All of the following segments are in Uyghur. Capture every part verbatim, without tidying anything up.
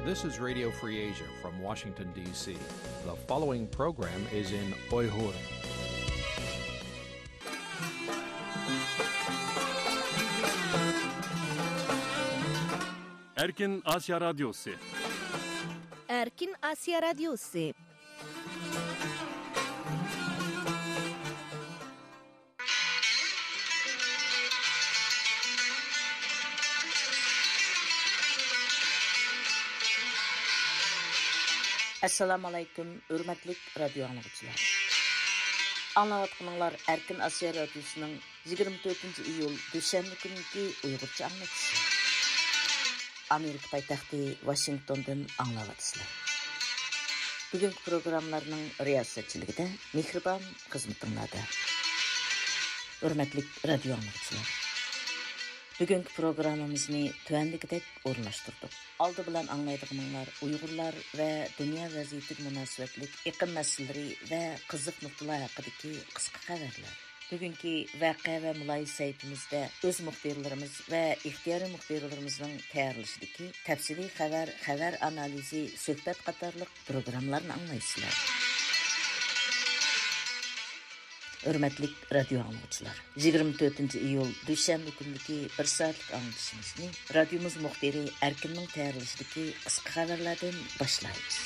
This is Radio Free Asia from Washington, D C. The following program is in Uyghur. Erkin Asya Radyosu. Erkin Asya Radyosu. ئەسسالامۇ ئەلەيكۇم، ھۆرمەتلىك رادىيو ئاڭلىغۇچىلار. ئاڭلاۋاتقىنىڭلار ئەركىن ئاسىيا رادىيوسىنىڭ يىگىرمە تۆتىنچى ئىيۇل دۈشەنبە كۈنىكى ئۇيغۇرچە ئاڭلىتىشى. ئامېرىكا پايتەختى ۋاشىنگتوندىن ئاڭلاۋاتىسىلەر. بۈگۈنكى پروگراممىلارنىڭ رىياسەتچىلىكىدە مېھرىبان خىزمىتىڭلاردا. ھۆرمەتلىك رادىيو ئاڭلىغۇچىلار، بۈگۈنكى پروگراممىمىزنى تۆۋەندىكىدەك ئورۇنلاشتۇردۇق. ئالدى بىلەن ئاڭلايدىغىنىڭلار ئۇيغۇرلار ۋە دۇنيا ۋەزىيىتىگە مۇناسىۋەتلىك ئېقىم مەسىلىلىرى ۋە قىزىق نۇقتىلار ھەققىدىكى قىسقا خەۋەرلەر. بۈگۈنكى ۋەقە ۋە مۇلاھىزە سەھىپىمىزدە ئۆز مۇخبىرلىرىمىز ۋە ئىختىيارىي مۇخبىرلىرىمىزنىڭ تەييارلىشىدىكى تەپسىلىي خەۋەر، خەۋەر ئانالىزى، سۆھبەت قاتارلىق پروگراممىلارنى ئاڭلايسىلەر. ھۆرمەتلىك رادىيو ئاڭلىغۇچىلار، يىگىرمە تۆتىنچى ئىيۇل دۈشەنبە كۈنلۈكى بىر سائەتلىك ئاڭلىتىشىمىزنى رادىيومىز مۇخبىرى ئەركىننىڭ تەييارلىشىدىكى قىسقا خەۋەرلەردىن باشلايمىز.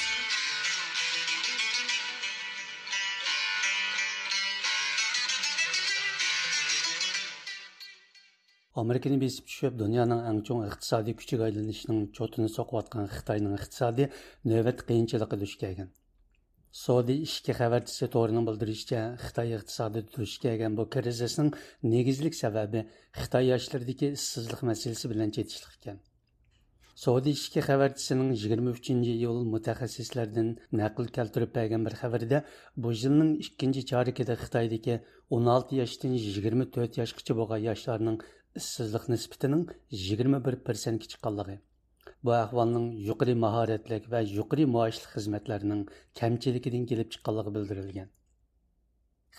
ئامېرىكىنى بېسىپ چۈشۈپ، دۇنيانىڭ ئەڭ چوڭ ئىقتىسادىي كۈچىگە ئايلىنىشىنىڭ چوتىنى سوقۇۋاتقان خىتاينىڭ ئىقتىسادى نۆۋەتتە قىيىنچىلىققا دۇچ كەلگەن. سودى ئىككى خەۋەرچىسى تورىنىڭ بىلدۈرۈشىچە، خىتاي ئىقتىسادىدا دۇچ كەلگەن بۇ كىرىزىسنىڭ نېگىزلىك سەۋەبى خىتاي ياشلىرىدىكى ئىشسىزلىق مەسىلىسى بىلەن چېتىشلىق ئىكەن. سودى ئىككى خەۋەرچىسىنىڭ يىگىرمە ئۈچىنچى ئىيۇل مۇتەخەسسىسلەردىن نەقىل كەلتۈرۈپ بەرگەن بىر خەۋىرىدە، بۇ يىلنىڭ ئىككىنچى چارىكىدە خىتايدىكى ئون ئالتە ياشتىن يىگىرمە تۆت ياشقىچە بولغان ياشلارنىڭ ئىشسىزلىق نىسبىتىنىڭ يىگىرمە بىر پىرسەنتكە چىققانلىقى، بۇ ئەھۋالنىڭ يۇقىرى ماھارەتلىك ۋە يۇقىرى مائاشلىق خىزمەتلەرنىڭ كەمچىلىكىدىن كېلىپ چىققانلىقى بىلدۈرۈلگەن.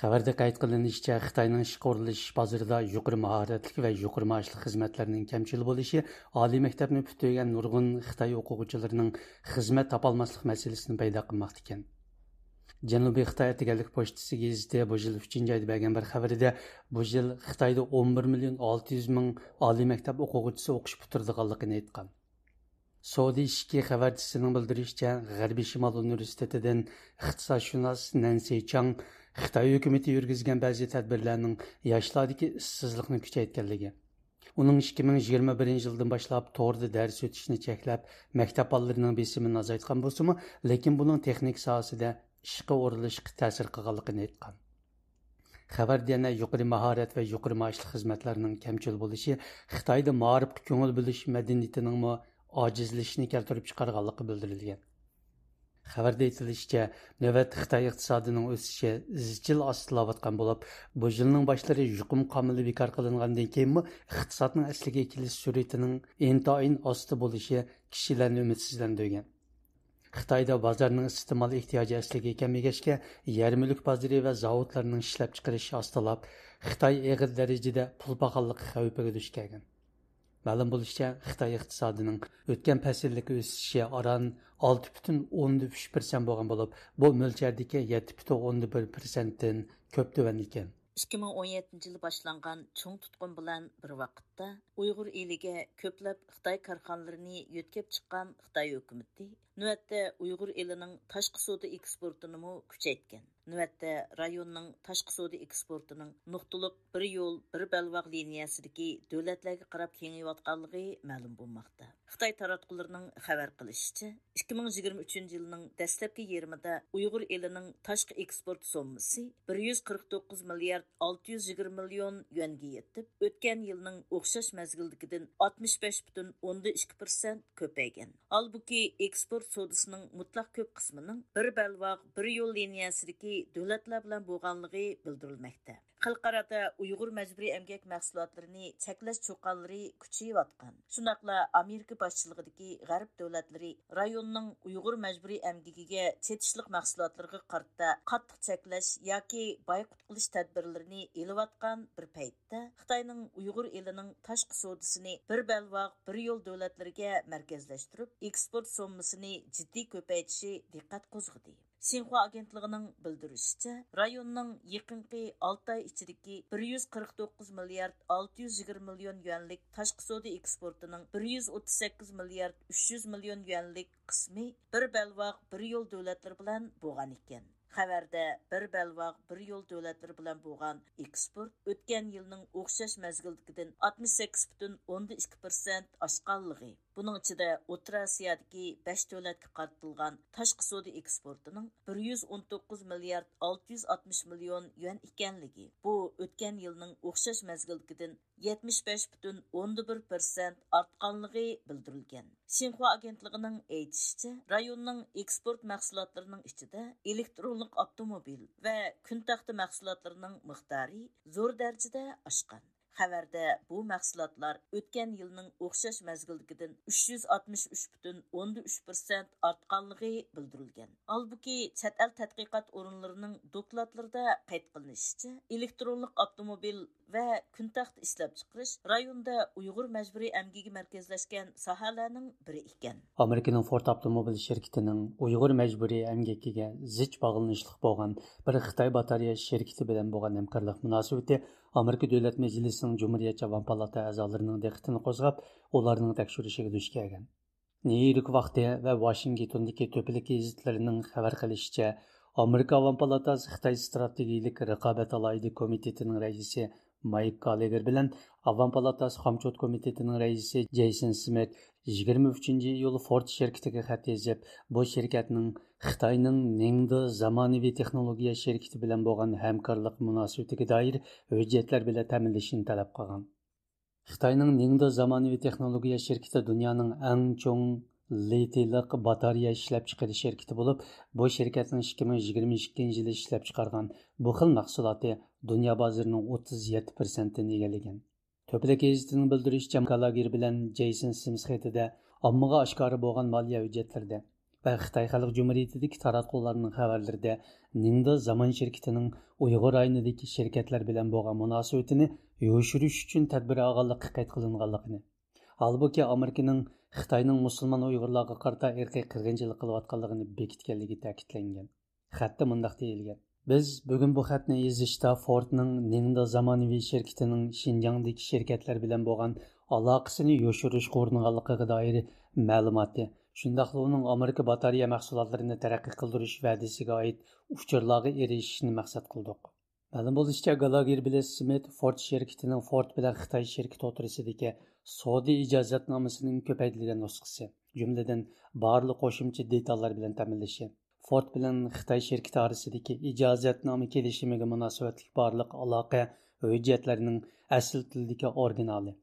خەۋەردە قەيت قىلىنىشىچە، خىتاينىڭ ئىشقا ئورۇنلىشىش بازىرىدا يۇقىرى ماھارەتلىك ۋە يۇقىرى مائاشلىق خىزمەتلەرنىڭ كەمچىل بولۇشى ئالىي مەكتەپنى پۈتتۈرگەن نۇرغۇن خىتاي ئوقۇغۇچىلىرىنىڭ خىزمەت تاپالماسلىق مەسىلىسىنى پەيدا قىلماقتا ئىكەن. جەنۇبىي خىتاي ئەتىگەنلىك پوچتىسى گېزىتى بۇ يىل ئۈچىنچى ئايدا بەرگەن بىر خەۋىرىدە، بۇ يىل خىتايدا ئون بىر مىليون ئالتە يۈز مىڭ ئالىي مەكتەپ ئوقۇغۇچىسى ئوقۇش پۈتتۈرىدىغانلىقىنى ئېيتقان. سودى ئىشىكى خەۋەرچىسىنىڭ بىلدۈرۈشىچە، غەربىي شىمال ئۇنىۋېرسىتېتىدىن ئىقتىسادشۇناس نەنسى چاڭ خىتاي ھۆكۈمىتى يۈرگۈزگەن بەزى تەدبىرلەرنىڭ ياشلاردىكى ئىشسىزلىقنى كۈچەيتكەنلىكى، ئۇنىڭ ئىككى مىڭ يىگىرمە بىرىنچى يىلدىن باشلاپ توردا دەرس ئۆتۈشنى چەكلەپ، مەكتەپ بالىلىرىنىڭ بېسىمىنى ئازايتقان بولسىمۇ، لېكىن بۇنىڭ تېخنىكا ساھەسىدە ئىشقا ئورۇنلىشىشقا تەسىر قىلغانلىقىنى ئېيتقان. خەۋەردە يەنە يۇقىرى ماھارەت ۋە يۇقىرى مائاشلىق خىزمەتلەرنىڭ كەمچىل بولۇشى خىتايدا مائارىپقا كۆڭۈل بۆلۈش مەدەنىيىتىنىڭمۇ ئاجىزلىشىشىنى كەلتۈرۈپ چىقارغانلىقى بىلدۈرۈلگەن. خەۋەردە ئېيتىلىشىچە، نۆۋەتتە خىتاي ئىقتىسادىنىڭ ئۆسۈشى ئىزچىل ئاستىلاۋاتقان بولۇپ، بۇ يىلنىڭ باشلىرى يۇقۇم قامىلى بىكار قىلىنغاندىن كېيىنمۇ ئىقتىسادنىڭ ئەسلىگە كېلىش سۈرئىتىنىڭ ئىنتايىن ئاستا بولۇشى كىشىلەرنى ئۈمىدسىزلەندۈرگەن. خىتايدا بازارنىڭ ئىستېمال ئېھتىياجى ئەسلىگە كەلمىگەچكە، يەر مۈلۈك بازىرى ۋە زاۋۇتلارنىڭ ئىشلەپچىقىرىشى ئاستىلاپ، خىتاي ئېغىر دەرىجىدە پۇل پاخاللىقى خەۋپىگە دۇچ كەلگەن. مەلۇم بولۇشىچە، خىتاي ئىقتىسادىنىڭ ئۆتكەن پەسىلدىكى ئۆسۈشى ئاران ئالتە پۈتۈن ئوندىن ئۈچ پىرسەنت بولغان بولۇپ، بۇ مۆلچەردىكى يەتتە پۈتۈن ئوندىن بىر پىرسەنتتىن كۆپ تۆۋەن ئىكەن. ئىككى مىڭ ئون يەتتىنچى يىلى باشلانغان چوڭ تۇتقۇن بىلەن بىر ۋاقىتتا، ئۇيغۇر ئېلىگە كۆپلەپ خىتاي كارخانىلىرىنى يۆتكەپ چىققان خىتاي ھۆكۈمىتى نۆۋەتتە ئۇيغۇر ئېلىنىڭ تاشقى سودا ئېكسپورتىنىمۇ كۈچەيتكەن. نۆۋەتتە رايوننىڭ تاشقى سودا ئېكسپورتىنىڭ نۇقتىلىق بىر يول، بىر بەلباغ لىنىيەسىدىكى دۆلەتلەرگە قاراپ كېڭىيىۋاتقانلىقى مەلۇم بولماقتا. خىتاي تاراتقۇلىرىنىڭ خەۋەر قىلىشىچە، ئىككى مىڭ يىگىرمە ئۈچىنچى يىلنىڭ دەسلەپكى يېرىمىدا ئۇيغۇر ئېلىنىڭ تاشقى ئېكسپورت سوممىسى بىر يۈز قىرىق توققۇز مىليارد ئالتە يۈز يىگىرمە مىليون يۈەنگە يېتىپ، ئۆتكەن يىلنىڭ ئوخشاش مەزگىلدىكىدىن ئاتمىش بەش پۈتۈن ئوندىن ئىككى پىرسەنت كۆپەيگەن. ھالبۇكى، ئېكسپورت سودىسىنىڭ مۇتلەق كۆپ قىسمىنىڭ بىر بەلباغ، بىر يول لىنىيەسىدىكى دۆلەتلەر بىلەن بولغانلىقى بىلدۈرۈلمەكتە. خەلقئارادا ئۇيغۇر مەجبۇرىي ئەمگەك مەھسۇلاتلىرىنى چەكلەش چۇقانلىرى كۈچىيىۋاتقان. شۇنداقلا ئامېرىكا باشچىلىقىدىكى غەرب دۆلەتلىرى رايوننىڭ ئۇيغۇر مەجبۇرىي ئەمگىكىگە چېتىشلىق مەھسۇلاتلىرىغا قارىتا قاتتىق چەكلەش ياكى بايقۇت قىلىش تەدبىرلىرىنى ئېلىۋاتقان بىر پەيتتە، خىتاينىڭ ئۇيغۇر ئېلىنىڭ تاشقى سودىسىنى بىر بەلباغ، بىر يول دۆلەتلىرىگە مەركەزلەشتۈرۈپ، ئېكسپورت سوممىسىنى جىددىي كۆپەيتىشى دىققەت قوزغىدى. شىنخۇا ئاگېنتلىقىنىڭ بىلدۈرۈشىچە، رايوننىڭ يېقىنقى ئالتە ئاي ئىچىدىكى بىر يۈز قىرىق توققۇز مىليارد ئالتە يۈز يىگىرمە مىليون يۈەنلىك تاشقى سودا ئېكسپورتىنىڭ بىر يۈز ئوتتۇز سەككىز مىليارد ئۈچ يۈز مىليون يۈەنلىك قىسمى بىر بەلباغ، بىر يول دۆلەتلىرى بىلەن بولغان ئىكەن. خەۋەردە، بىر بەلباغ، بىر يول دۆلەتلىرى بىلەن بولغان ئېكسپورت ئۆتكەن يىلنىڭ ئوخشاش مەزگىلدىكىدىن ئاتمىش سەككىز پۈتۈن ئوندىن ئىككى پىرسەنت ئاشقانلىقى، بۇنىڭ ئىچىدە ئوتتۇرا ئاسىيادىكى بەش دۆلەتكە قارىتىلغان تاشقى سودا ئېكسپورتىنىڭ بىر يۈز ئون توققۇز مىليارد ئالتە يۈز ئاتمىش مىليون يۈەن ئىكەنلىكى، بۇ ئۆتكەن يىلنىڭ ئوخشاش مەزگىلدىكىدىن يەتمىش بەش پۈتۈن ئوندىن بىر پىرسەنت ئارتقانلىقى بىلدۈرۈلگەن. شىنخۇا ئاگېنتلىقىنىڭ ئېيتىشىچە، رايوننىڭ ئېكسپورت مەھسۇلاتلىرىنىڭ ئىچىدە ئېلېكترونلۇق ئاپتوموبىل ۋە كۈن تەختە مەھسۇلاتلىرىنىڭ مىقدارى زور دەرىجىدە ئاشقان. خەۋەردە، بۇ مەھسۇلاتلار ئۆتكەن يىلنىڭ ئوخشاش مەزگىلدىكىدىن ئۈچ يۈز ئاتمىش ئۈچ پۈتۈن ئوندىن ئۈچ پىرسەنت ئارتقانلىقى بىلدۈرۈلگەن. ھالبۇكى، چەت ئەل تەتقىقات ئورۇنلىرىنىڭ دوكلاتلىرىدا قەيت قىلىنىشىچە، ئېلېكترونلۇق ئاپتوموبىل ۋە كۈن تەختە ئىشلەپچىقىرىش رايوندا ئۇيغۇر مەجبۇرىي ئەمگىكى مەركەزلەشكەن ساھەلەرنىڭ بىرى ئىكەن. ئامېرىكىنىڭ فورد ئاپتوموبىل شىركىتىنىڭ ئۇيغۇر مەجبۇرىي ئەمگىكىگە زىچ باغلىنىشلىق بولغان بىر خىتاي باتارېيە شىركىتى بىلەن بولغان ھەمكارلىق مۇناسىۋىتى ئامېرىكا دۆلەت مەجلىسىنىڭ جۇمھۇرىيەتچى ئاۋام پالاتا ئەزالىرىنىڭ دىققىتىنى قوزغاپ، ئۇلارنىڭ تەكشۈرۈشىگە دۇچ كەلگەن. نيۇ يورك ۋاقتى ۋە ۋاشىنگتوندىكى تۆپىلىك گېزىتلىرىنىڭ خەۋەر قىلىشىچە، ئامېرىكا ئاۋام پالاتاسى خىتاي ئىستراتېگىيىلىك رىقابەت ئالاھىدە كومىتېتىنىڭ رەئىسى مايك گاللېگېر بىلەن ئاۋام پالاتاسى خامچوت كومىتېتىنىڭ رەئىسى جېيسون سمىت يىگىرمە ئۈچىنچى ئىيۇل فورد شىركىتىگە خەت يېزىپ، بۇ شىركەتنىڭ خىتاينىڭ نىڭدې زامانىۋى تېخنولوگىيە شىركىتى بىلەن بولغان ھەمكارلىق مۇناسىۋىتىگە دائىر ھۆججەتلەر بىلەن تەمىنلىشىنى تەلەپ قىلغان. خىتاينىڭ نىڭدې زامانىۋى تېخنولوگىيە شىركىتى دۇنيانىڭ ئەڭ چوڭ لىتىيلىق باتارېيە ئىشلەپچىقىرىش شىركىتى بولۇپ، بۇ شىركەتنىڭ ئىككى مىڭ يىگىرمە ئىككىنچى يىلى ئىشلەپچىقارغان بۇ خىل مەھسۇلاتى دۇنيا بازىرىنىڭ ئوتتۇز يەتتە پىرسەنتىنى ئىگىلىگەن. تۆپىلىك گېزىتىنىڭ بىلدۈرۈشىچە، گالاگېر بىلەن جېيسون سىمس خېتىدە ئاممىغا ئاشكارا بولغان مالىيە ھۆججەتلىرىدە ۋە خىتاي خەلق جۇمھۇرىيىتىدىكى تاراتقۇلارنىڭ خەۋەرلىرىدە نىڭدې زامان شىركىتىنىڭ ئۇيغۇر رايونىدىكى شىركەتلەر بىلەن بولغان مۇناسىۋىتىنى يوشۇرۇش ئۈچۈن تەدبىر ئالغانلىقى قەيت قىلىنغانلىقىنى، ھالبۇكى، ئامېرىكىنىڭ خىتاينىڭ مۇسۇلمان ئۇيغۇرلارغا قارىتا ئىرقىي قىرغىنچىلىق قىلىۋاتقانلىقىنى بېكىتكەنلىكى تەكىتلەنگەن. خەتتە مۇنداق دېيىلگەن: «بىز بۈگۈن بۇ خەتنى يېزىشتا فوردنىڭ نىڭدې زامانىۋى شىركىتىنىڭ شىنجاڭدىكى شىركەتلەر بىلەن بولغان ئالاقىسىنى يوشۇرۇشقا ئۇرۇنغانلىقىغا دائىر مەلۇماتنى، شۇنداقلا ئۇنىڭ ئامېرىكا باتارېيە مەھسۇلاتلىرىنى تەرەققىي قىلدۇرۇش ۋەدىسىگە ئائىت ئۇچۇرلارغا ئېرىشىشنى مەقسەت قىلدۇق.» مەلۇم بولۇشىچە، گالاگېر بىلەن سمىت فورد شىركىتىنىڭ فورد بىلەن خىتاي شىركىتى ئوتتۇرىسىدىكى سودا ئىجازەتنامىسىنىڭ كۆپەيتىلگەن نۇسخىسى، جۈملىدىن بارلىق قوشۇمچە دېتاللار بىلەن تەمىنلىشى، فورد بىلەن خىتاي شىركىتى ئارىسىدىكى ئىجازەتنامە كېلىشىمىگە مۇناسىۋەتلىك بارلىق ئالاقە ھۆججەتلىرىنىڭ ئەسلى تىلدىكى ئورىگىنالى،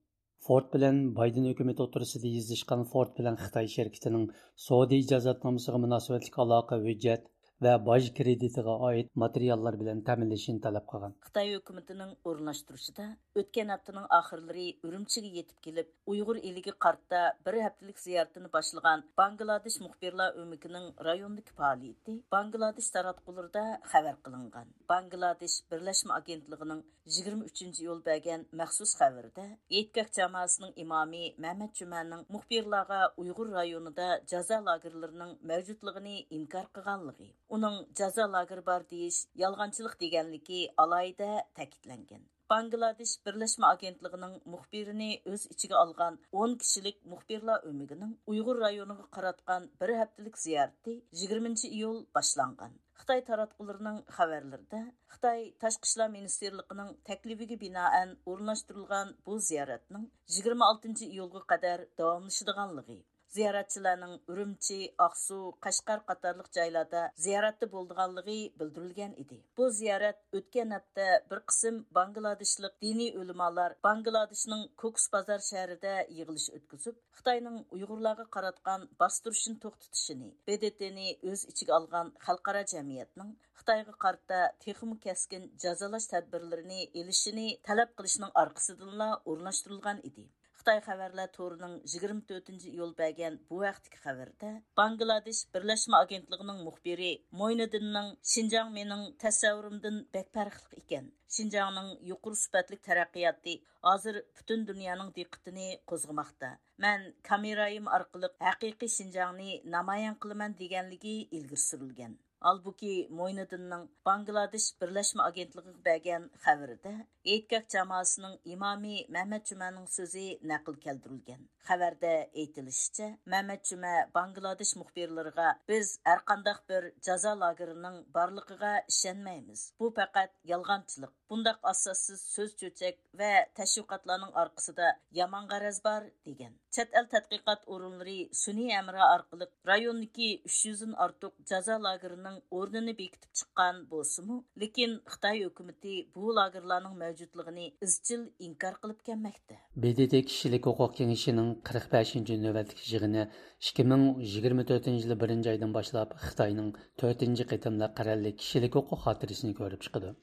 فورد بىلەن بايدېن ھۆكۈمىتى ئوتتۇرىسىدا يېزىشقان فورد بىلەن خىتاي شىركىتىنىڭ سودا ئىجازەتنامىسىغا مۇناسىۋەتلىك ئالاقە ھۆججەت ۋە باج كىرېدىتىغا ئائىت ماتېرىياللار بىلەن تەمىنلىشىنى تەلەپ قىلغان. خىتاي ھۆكۈمىتىنىڭ ئورۇنلاشتۇرۇشىدا ئۆتكەن ھەپتىنىڭ ئاخىرلىرى ئۈرۈمچىگە يېتىپ كېلىپ، ئۇيغۇر ئېلىگە قارىتا بىر ھەپتىلىك زىيارىتىنى باشلىغان باڭگلادېش مۇخبىرلار ئۆمىكىنىڭ رايوندىكى پائالىيىتى باڭگلادېش تاراتقۇلىرىدا خەۋەر قىلىنغان. باڭگلادېش بىرلەشمە ئاگېنتلىقىنىڭ يىگىرمە ئۈچىنچى ئىيۇل بەرگەن مەخسۇس خەۋىرىدە، ئېيتكاك جامائىسىنىڭ ئىمامى مەمەت جۈمەنىڭ مۇخبىرلارغا ئۇيغۇر رايونىدا جازا لاگېرلىرىنىڭ مەۋجۇتلۇقىنى ئىنكار قىلغانلىقى، ئۇنىڭ جازا لاگېرى بار دېيىش يالغانچىلىق دېگەنلىكى ئالاھىدە تەكىتلەنگەن. باڭگلادېش بىرلەشمە ئاگېنتلىقىنىڭ مۇخبىرىنى ئۆز ئىچىگە ئالغان ئون كىشىلىك مۇخبىرلار ئۆمىكىنىڭ ئۇيغۇر رايونىغا قاراتقان بىر ھەپتىلىك زىيارىتى يىگىرمىنچى ئىيۇل باشلانغان. خىتاي تاراتقۇلىرىنىڭ خەۋەرلىرىدە، خىتاي تاشقى ئىشلار مىنىستىرلىقىنىڭ تەكلىپىگە بىنائەن ئورۇنلاشتۇرۇلغان بۇ زىيارەتنىڭ يىگىرمە ئالتىنچى ئىيۇلغا قەدەر داۋاملىشىدىغانلىقى، زىيارەتچىلەرنىڭ ئۈرۈمچى، ئاقسۇ، قەشقەر قاتارلىق جايلاردا زىيارەتتە بولىدىغانلىقى بىلدۈرۈلگەن ئىدى. بۇ زىيارەت ئۆتكەن ھەپتە بىر قىسىم باڭگلادېشلىق دىنىي ئۆلىمالار باڭگلادېشنىڭ كوكۇس بازار شەھىرىدە يىغىلىش ئۆتكۈزۈپ، خىتاينىڭ ئۇيغۇرلارغا قاراتقان باستۇرۇشىنى توختىتىشىنى، ب د ت نى ئۆز ئىچىگە ئالغان خەلقئارا جەمئىيەتنىڭ خىتايغا قارىتا تېخىمۇ كەسكىن جازالاش تەدبىرلىرىنى ئېلىشىنى تەلەپ قىلىشنىڭ ئارقىسىدىنلا ئورۇنلاشتۇرۇلغان ئىدى. خىتاي خەۋەرلەر تورىنىڭ يىگىرمە تۆتىنچى ئىيۇل بەرگەن بۇ ھەقتىكى خەۋىرىدە، باڭگلادېش بىرلەشمە ئاگېنتلىقىنىڭ مۇخبىرى موينىدىننىڭ «شىنجاڭ مېنىڭ تەسەۋۋۇرۇمدىن بەك پەرقلىق ئىكەن. شىنجاڭنىڭ يۇقىرى سۈپەتلىك تەرەققىياتى ھازىر پۈتۈن دۇنيانىڭ دىققىتىنى قوزغىماقتا. مەن كامېرايىم ئارقىلىق ھەقىقىي شىنجاڭنى نامايان قىلىمەن» دېگەنلىكى ئىلگىرى سۈرۈلگەن. ھالبۇكى، موينىدىننىڭ باڭگلادېش بىرلەشمە ئاگېنتلىقىغا بەرگەن خەۋىرىدە ھېيتگاھ جامائىسىنىڭ ئىمامى مەمەت جۈمەنىڭ سۆزى نەقىل كەلتۈرۈلگەن. خەۋەردە ئېيتىلىشىچە، مەمەت جۈمە باڭگلادېش مۇخبىرلىرىغا: «بىز ھەرقانداق بىر جازا لاگېرىنىڭ بارلىقىغا ئىشەنمەيمىز. بۇ پەقەت يالغانچىلىق. بۇنداق ئاساسسىز سۆز چۆچەك ۋە تەشۋىقاتلارنىڭ ئارقىسىدا يامان غەرەز بار» دېگەن. چەت ئەل تەتقىقات ئورۇنلىرى سۈنئىي ھەمراھ ئارقىلىق رايوندىكى ئۈچ يۈزدىن ئارتۇق جازا لاگېرىنىڭ ئورنىنى بېكىتىپ چىققان بولسىمۇ، لېكىن خىتاي ھۆكۈمىتى بۇ لاگېرلارنىڭ مەۋجۇتلۇقىنى ئىزچىل ئىنكار قىلىپ كەلمەكتە. ب د ت كىشىلىك ھوقۇق كېڭىشىنىڭ قىرىق بەشىنچى نۆۋەتلىك يىغىنى ئىككى مىڭ يىگىرمە تۆتىنچى يىلى بىرىنچى ئايدىن باشلاپ خىتاينىڭ تۆتىنچى قېتىملىق قەرەللىك كىشىلىك ھوقۇق خاتىرىسىنى كۆرۈپ چىقىدۇ.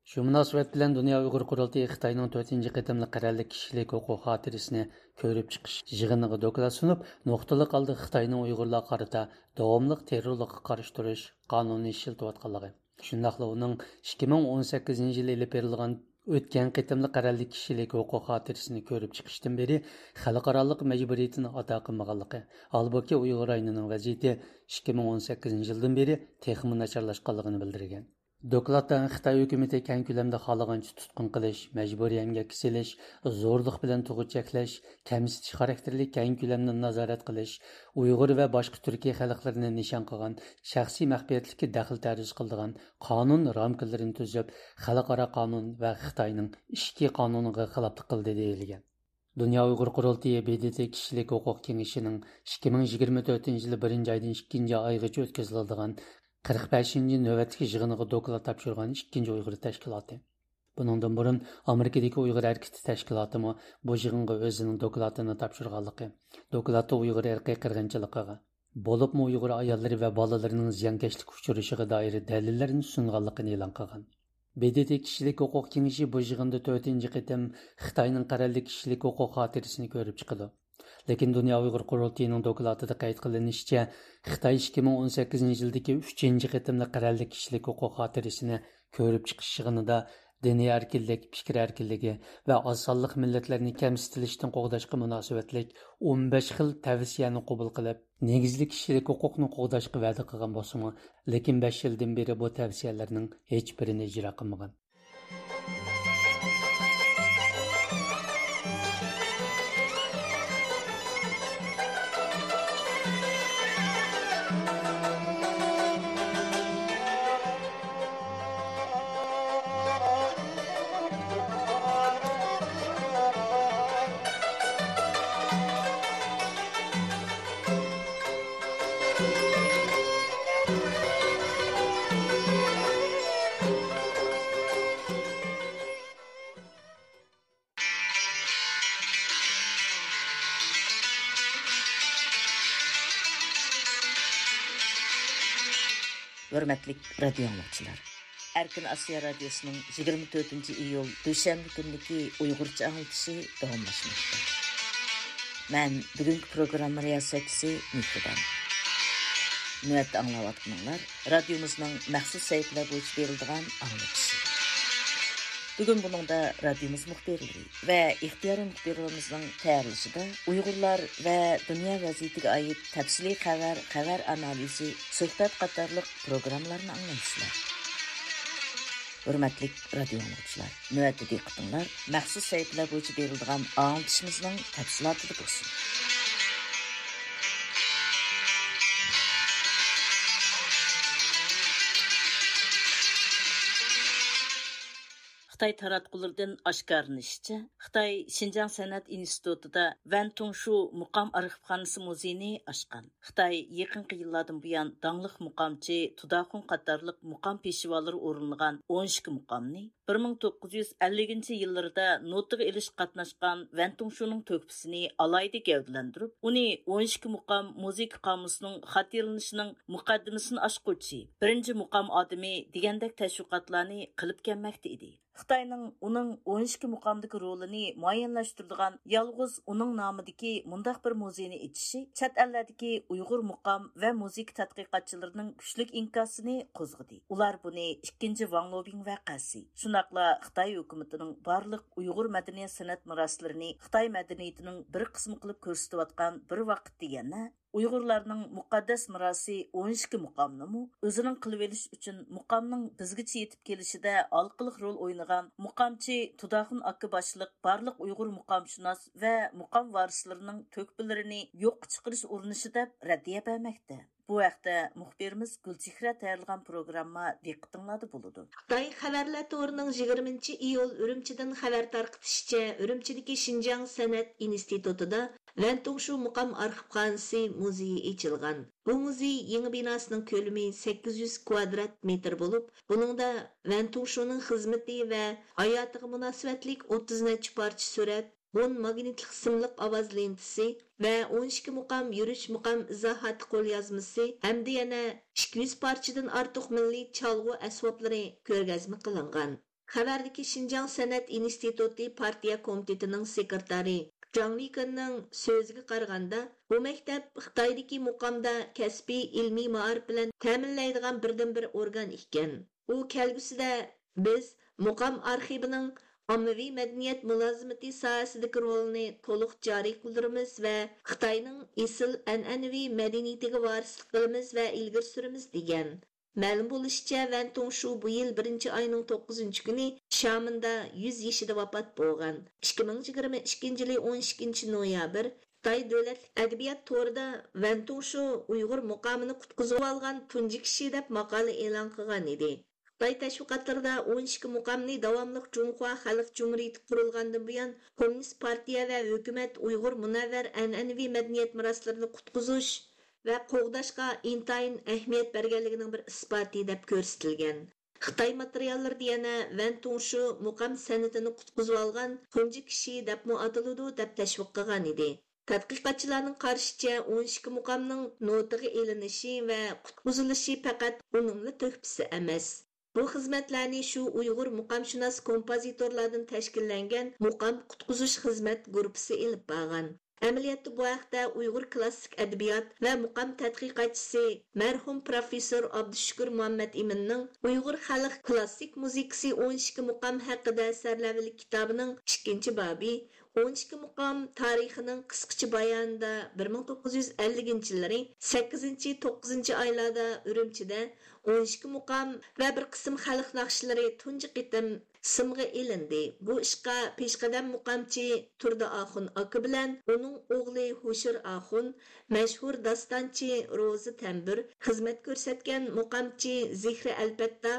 شۇ مۇناسىۋەت بىلەن دۇنيا ئۇيغۇر قۇرۇلتىيى خىتاينىڭ تۆتىنچى قېتىملىق قەرەللىك كىشىلىك ھوقۇق خاتىرىسىنى كۆرۈپ چىقىش يىغىنىغا دوكلات سۇنۇپ، نۇقتىلىق ھالدا خىتاينىڭ ئۇيغۇرلارغا قارىتا داۋاملىق تېررورلۇققا قارشى تۇرۇش قانۇنىنى ئىشلىتىۋاتقانلىقى، شۇنداقلا ئۇنىڭ ئىككى مىڭ ئون سەككىزىنچى يىلى ئېلىپ بېرىلغان ئۆتكەن قېتىملىق قەرەللىك كىشىلىك ھوقۇق خاتىرىسىنى كۆرۈپ چىقىشتىن بېرى خەلقئارالىق مەجبۇرىيىتىنى ئادا قىلمىغانلىقى، ھالبۇكى، ئۇيغۇر رايونىنىڭ ۋەزىيىتى ئىككى مىڭ ئون سەككىزىنچى يىلدىن بېرى تېخىمۇ ناچارلاشقانلىقىنى بىلدۈرگەن. دوكلاتتا خىتاي ھۆكۈمىتى كەڭ كۆلەمدە خالىغانچە تۇتقۇن قىلىش، مەجبۇرىي ئەمگەككە سېلىش، زورلۇق بىلەن تۇغۇت چەكلەش، كەمسىتىش خاراكتېرلىك كەڭ كۆلەمدە نازارەت قىلىش، ئۇيغۇر ۋە باشقا تۈركىي خەلقلەرنى نىشان قىلغان شەخسىي مەخپىيەتلىككە دەخلى تەرۇز قىلىدىغان قانۇن رامكىلىرىنى تۈزۈپ، خەلقئارا قانۇن ۋە خىتاينىڭ ئىچكى قانۇنىغا خىلاپلىق قىلدى دېيىلگەن. دۇنيا ئۇيغۇر قۇرۇلتىيى، ب د ت كىشىلىك ھوقۇق كېڭىشىنىڭ ئىككى مىڭ يىگىرمە تۆتىنچى يىلى بىرىنچى ئايدىن ئىككىنچى ئايغىچە ئۆتكۈزۈلىدىغان قىرىق بەشىنچى نۆۋەتلىك يىغىنىغا دوكلات تاپشۇرغان ئىككىنچى ئۇيغۇر تەشكىلاتى. بۇنىڭدىن بۇرۇن ئامېرىكىدىكى ئۇيغۇر ھەرىكىتى تەشكىلاتىمۇ بۇ يىغىنغا ئۆزىنىڭ دوكلاتىنى تاپشۇرغانلىقى، دوكلاتتا ئۇيغۇر ئىرقىي قىرغىنچىلىقىغا، بولۇپمۇ ئۇيغۇر ئاياللىرى ۋە بالىلىرىنىڭ زىيانكەشلىككە ئۇچرىشىغا دائىر دەلىللەرنى سۇنغانلىقىنى ئېلان قىلغان. ب د ت كىشىلىك ھوقۇق كېڭىشى بۇ يىغىندا تۆتىنچى قېتىم خىتاينىڭ قەرەللىك كىشىلىك ھوقۇق خاتىرىسىنى كۆرۈپ چىقىدۇ. لېكىن دۇنيا ئۇيغۇر قۇرۇلتىيىنىڭ دوكلاتىدا قەيت قىلىنىشىچە، خىتاي ئىككى مىڭ ئون سەككىزىنچى يىلدىكى ئۈچىنچى قېتىملىق قەرەللىك كىشىلىك ھوقۇق خاتىرىسىنى كۆرۈپ چىقىش يىغىنىدا دىنىي ئەركىنلىك، پىكىر ئەركىنلىكى ۋە ئاز سانلىق مىللەتلەرنى كەمسىتىلىشتىن قوغداشقا مۇناسىۋەتلىك ئون بەش خىل تەۋسىيەنى قوبۇل قىلىپ، نېگىزلىك كىشىلىك ھوقۇقنى قوغداشقا ۋەدە قىلغان بولسىمۇ، لېكىن بەش يىلدىن بېرى بۇ تەۋسىيەلەرنىڭ ھېچبىرىنى ئىجرا قىلمىغان. ھۆرمەتلىك رادىيو ئاڭلىغۇچىلار! ئەركىن ئاسىيا رادىيوسىنىڭ يىگىرمە تۆتىنچى ئىيۇل دۈشەنبە كۈنلۈكى ئۇيغۇرچە ئاڭلىتىشى داۋاملاشماقتا. مەن بۈگۈنكى پروگرامما رىياسەتچىسى مېھرىبان. نۆۋەتتە ئاڭلاۋاتقىنىڭلار رادىيومىزنىڭ مەخسۇس سەھىپىلەر بويىچە بېرىلىدىغان ئاڭلىتىشى. بۈگۈن بۇنىڭدا رادىيومىز مۇخبىرلىرى ۋە ئىختىيارىي مۇخبىرلىرىمىزنىڭ تەييارلىشىدا ئۇيغۇرلار ۋە دۇنيا ۋەزىيىتىگە ئائىت تەپسىلىي خەۋەر، خەۋەر ئانالىزى، سۆھبەت قاتارلىق پروگراممىلارنى ئاڭلايسىلەر. ھۆرمەتلىك رادىيو ئاڭلىغۇچىلار، نۆۋەتتە دىققىتىڭلار مەخسۇس سەھىپىلەر بويىچە بېرىلىدىغان ئاڭلىتىشىمىزنىڭ تەپسىلاتىدا بولسۇن. خىتاي تاراتقۇلىرىدىن ئاشكارىلىنىشىچە، خىتاي شىنجاڭ سەنئەت ئىنستىتۇتىدا ۋەن تۇڭشۇ مۇقام ئارخىپخانىسى مۇزېيىنى ئاچقان. خىتاي يېقىنقى يىللاردىن بۇيان داڭلىق مۇقامچى تۇداخۇن قاتارلىق مۇقام پېشۋالىرى ئورۇنلىغان ئون ئىككى مۇقامنى، بىر مىڭ توققۇز يۈز ئەللىكىنچى يىللىرىدا نوتىغا ئېلىشقا قاتناشقان ۋەن تۇڭشۇنىڭ تۆھپىسىنى ئالاھىدە گەۋدىلەندۈرۈپ، ئۇنى ئون ئىككى مۇقام مۇزىكا قامۇسىنىڭ خاتىرىلىنىشىنىڭ مۇقەددىمىسىنى ئاچقۇچى، بىرىنچى مۇقام ئادىمى دېگەندەك تەشۋىقاتلارنى قىلىپ كەلمەكتە ئىدى. خىتاينىڭ ئۇنىڭ ئون ئىككى مۇقامدىكى رولىنى مۇئەييەنلەشتۈرىدىغان يالغۇز ئۇنىڭ نامىدىكى مۇنداق بىر مۇزېينى ئېچىشى چەت ئەللەردىكى ئۇيغۇر مۇقام ۋە مۇزىكا تەتقىقاتچىلىرىنىڭ كۈچلۈك ئىنكاسىنى قوزغىدى. ئۇلار بۇنى ئىككىنچى ۋاڭ لوبىڭ ۋەقەسى، شۇنداقلا خىتاي ھۆكۈمىتىنىڭ بارلىق ئۇيغۇر مەدەنىيەت سەنئەت مىراسلىرىنى خىتاي مەدەنىيىتىنىڭ بىر قىسمى قىلىپ كۆرسىتىۋاتقان بىر ۋاقىتتا يەنە ئۇيغۇرلارنىڭ مۇقەددەس مىراسى ئون ئىككى مۇقامنىمۇ ئۆزىنىڭ قىلىۋېلىش ئۈچۈن مۇقامنىڭ بىزگىچە يېتىپ كېلىشىدە ھالقىلىق رول ئوينىغان مۇقامچى تۇداخۇن ئاكا باشلىق بارلىق ئۇيغۇر مۇقامشۇناس ۋە مۇقام ۋارىسلىرىنىڭ تۆھپىلىرىنى يوققا چىقىرىش ئۇرۇنۇشى دەپ رەددىيە بەرمەكتە. بۇ ھەقتە مۇخبىرىمىز گۈلچېھرە تەييارلىغان پروگرامما دىققىتىڭلاردا بولىدۇ. خىتاي خەۋەرلەر تورىنىڭ يىگىرمىنچى ئىيۇل ئۈرۈمچىدىن خەۋەر تارقىتىشىچە، ئۈرۈمچىدىكى شىنجاڭ سەنئەت ئىنستىتۇتىدا ۋەن تۇڭشۇ مۇقام ئارخىپخانىسى مۇزېيى ئېچىلغان. بۇ مۇزېي يېڭى بىناسىنىڭ كۆلىمى سەككىز يۈز كۋادرات مېتىر بولۇپ، بۇنىڭدا ۋەن تۇڭشۇنىڭ خىزمىتى ۋە ھاياتىغا مۇناسىۋەتلىك ئوتتۇز نەچچە پارچە سۈرەت، ئون ماگنىتلىق سىملىق ئاۋاز لېنتىسى ۋە ئون ئىككى مۇقام يۈرۈش مۇقام ئىزاھاتى قوليازمىسى ھەمدە يەنە ئىككى يۈز پارچىدىن ئارتۇق مىللىي چالغۇ ئەسۋابلىرى كۆرگەزمە قىلىنغان. خەۋەردىكى شىنجاڭ سەنئەت ئىنستىتۇتى پارتىيە كومىتېتىنىڭ سېكرېتارى جاڭ لىكېننىڭ سۆزىگە قارىغاندا، بۇ مەكتەپ خىتايدىكى مۇقامدا كەسپىي ئىلمىي مائارىپ بىلەن تەمىنلەيدىغان بىردىنبىر ئورگان ئىكەن. ئۇ كەلگۈسىدە بىز مۇقام ئارخىۋىنىڭ ئاممىۋى مەدەنىيەت مۇلازىمىتى ساھەسىدىكى رولىنى تولۇق جارى قىلدۇرىمىز ۋە خىتاينىڭ ئېسىل ئەنئەنىۋى مەدەنىيىتىگە ۋارىسلىق قىلىمىز ۋە ئىلگىرى سۈرىمىز، دېگەن. مەلۇم بولۇشىچە، ۋەن تۇڭشۇ بۇ يىل بىرىنچى ئاينىڭ توققۇزىنچى كۈنى شيامېندا يۈز يېشىدا ۋاپات بولغان. ئىككى مىڭ يىگىرمە ئىككىنچى يىلى ئون ئىككىنچى نويابىر خىتاي دۆلەتلىك ئەدەبىيات تورىدا ۋەن تۇڭشۇ ئۇيغۇر مۇقامىنى قۇتقۇزۇۋالغان تۇنجى كىشى دەپ ماقالە ئېلان قىلغان ئىدى. خىتاي تەشۋىقاتلىرىدا ئون ئىككى مۇقامنى داۋاملىق جۇڭخۇا خەلق جۇمھۇرىيىتى قۇرۇلغاندىن بۇيان كوممۇنىست پارتىيە ۋە ھۆكۈمەت ئۇيغۇر مۇنەۋۋەر ئەنئەنىۋى مەدەنىيەت مىراسلىرىنى قۇتقۇزۇش ۋە قوغداشقا ئىنتايىن ئەھمىيەت بەرگەنلىكىنىڭ بىر ئىسپاتى دەپ كۆرسىتىلگەن. خىتاي ماتېرىياللىرىدا يەنە ۋەن تۇڭشۇ مۇقام سەنئىتىنى قۇتقۇزۇۋالغان تۇنجى كىشى دەپمۇ ئاتىلىدۇ دەپ تەشۋىق قىلغان ئىدى. تەتقىقاتچىلارنىڭ قارىشىچە، ئون ئىككى مۇقامنىڭ نوتىغا ئېلىنىشى ۋە قۇتقۇزۇلۇشى پەقەت ئۇنىڭلا تۆھپىسى ئەمەس. بۇ خىزمەتلەرنى شۇ ئۇيغۇر مۇقامشۇناس كومپوزىتورلاردىن تەشكىللەنگەن مۇقام قۇتقۇزۇش خىزمەت گۇرۇپپىسى ئېلىپ بارغان. ئەمەلىيەتتە بۇ ھەقتە ئۇيغۇر كلاسسىك ئەدەبىيات ۋە مۇقام تەتقىقاتچىسى، مەرھۇم پروفېسسور ئابدۇشۈكۈر مۇھەممەت ئىمىننىڭ ئۇيغۇر خەلق كلاسسىك مۇزىكىسى ئون ئىككى مۇقام ھەققىدە سەرلەۋھىلىك كىتابىنىڭ ئىككىنچى بابى، ئون ئىككى مۇقام تارىخىنىڭ قىسقىچە بايانىدا، بىر مىڭ توققۇز يۈز ئەللىكىنچى يىللىرى سەككىزىنچى، توققۇزىنچى ئايلاردا ئۈرۈمچىدە ئون ئىككى مۇقام ۋە بىر قىسىم خەلق ناخشىلىرى تۇنجى قېتىم سىمغا ئېلىندى. بۇ ئىشقا پېشقەدەم مۇقامچى تۇردى ئاخۇن ئاكا بىلەن ئۇنىڭ ئوغلى ھوشۇر ئاخۇن، مەشھۇر داستانچى روزى تەمبۇر، خىزمەت كۆرسەتكەن مۇقامچى زېھرى ئەلپەتتا،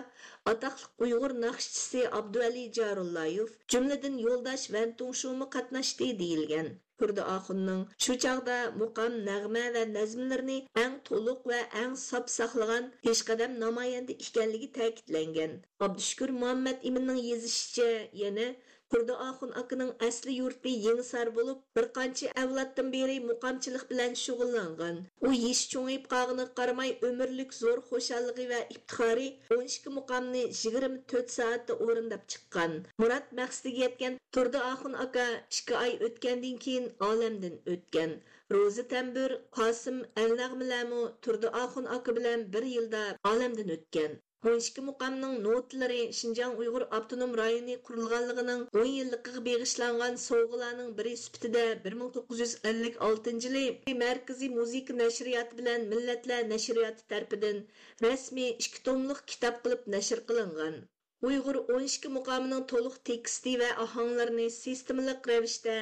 ئاتاقلىق ئۇيغۇر ناخشىچىسى ئابدۇۋەلى جارۇللايېف، جۈملىدىن يولداش ۋەن تۇڭشۇمۇ قاتناشتى دېيىلگەن. تۇردى ئاخۇننىڭ شۇ چاغدا مۇقام، نەغمە ۋە نەزمىلىرىنى ئەڭ تولۇق ۋە ئەڭ ساپ ساقلىغان پېشقەدەم نامايەندە ئىكەنلىكى تەكىتلەنگەن. ئابدۇشۈكۈر مۇھەممەت ئىمىننىڭ يېزىشىچە، يەنە تۇردى ئاخۇن ئاكىنىڭ ئەسلى يۇرتى يېڭىسار بولۇپ، بىر قانچە ئەۋلادتىن بېرى مۇقامچىلىق بىلەن شۇغۇللانغان. ئۇ يېشى چوڭىيىپ قالغىنىغا قارىماي، ئۆمۈرلۈك زور خۇشاللىقى ۋە ئىپتىخارى ئون ئىككى مۇقامنى يىگىرمە تۆت سائەتتە ئورۇنداپ چىققان. مۇراد مەقسىتىگە يەتكەن تۇردى ئاخۇن ئاكا ئىككى ئاي ئۆتكەندىن كېيىن ئالەمدىن ئۆتكەن. روزى تەمبۇر، قاسىم ئەلنەغمىلەرمۇ تۇردى ئاخۇن ئاكا بىلەن بىر يىلدا ئالەمدىن ئۆتكەن. ئون ئىككى مۇقامنىڭ نوتىلىرى شىنجاڭ ئۇيغۇر ئاپتونوم رايونى قۇرۇلغانلىقىنىڭ ئون يىللىقىغا بېغىشلانغان سوۋغىلارنىڭ بىرى سۈپىتىدە بىر مىڭ توققۇز يۈز ئەللىك ئالتىنچى يىلى مەركىزىي مۇزىكا نەشرىياتى بىلەن مىللەتلەر نەشرىياتى تەرىپىدىن رەسمىي ئىككى توملۇق كىتاب قىلىپ نەشر قىلىنغان. ئۇيغۇر ئون ئىككى مۇقامىنىڭ تولۇق تېكىستى ۋە ئاھاڭلىرىنى سىستېمىلىق رەۋىشتە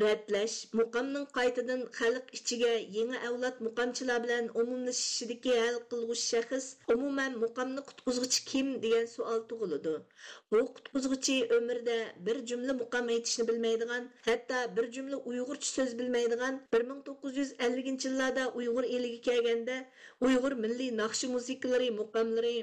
رەتلەش، مۇقامنىڭ قايتىدىن خەلق ئىچىگە يېڭى ئەۋلاد مۇقامچىلار بىلەن ئومۇملىشىشىدىكى ھەل قىلغۇچ شەخس، ئومۇمەن، مۇقامنى قۇتقۇزغۇچى كىم دېگەن سوئال تۇغۇلىدۇ. بۇ قۇتقۇزغۇچى ئۆمرىدە بىر جۈملە مۇقام ئېيتىشنى بىلمەيدىغان، ھەتتا بىر جۈملە ئۇيغۇرچە سۆز بىلمەيدىغان، بىر مىڭ توققۇز يۈز ئەللىكىنچى يىللاردا ئۇيغۇر ئېلىگە كەلگەندە، ئۇيغۇر مىللىي ناخشا مۇزىكىلىرى، مۇقاملىرى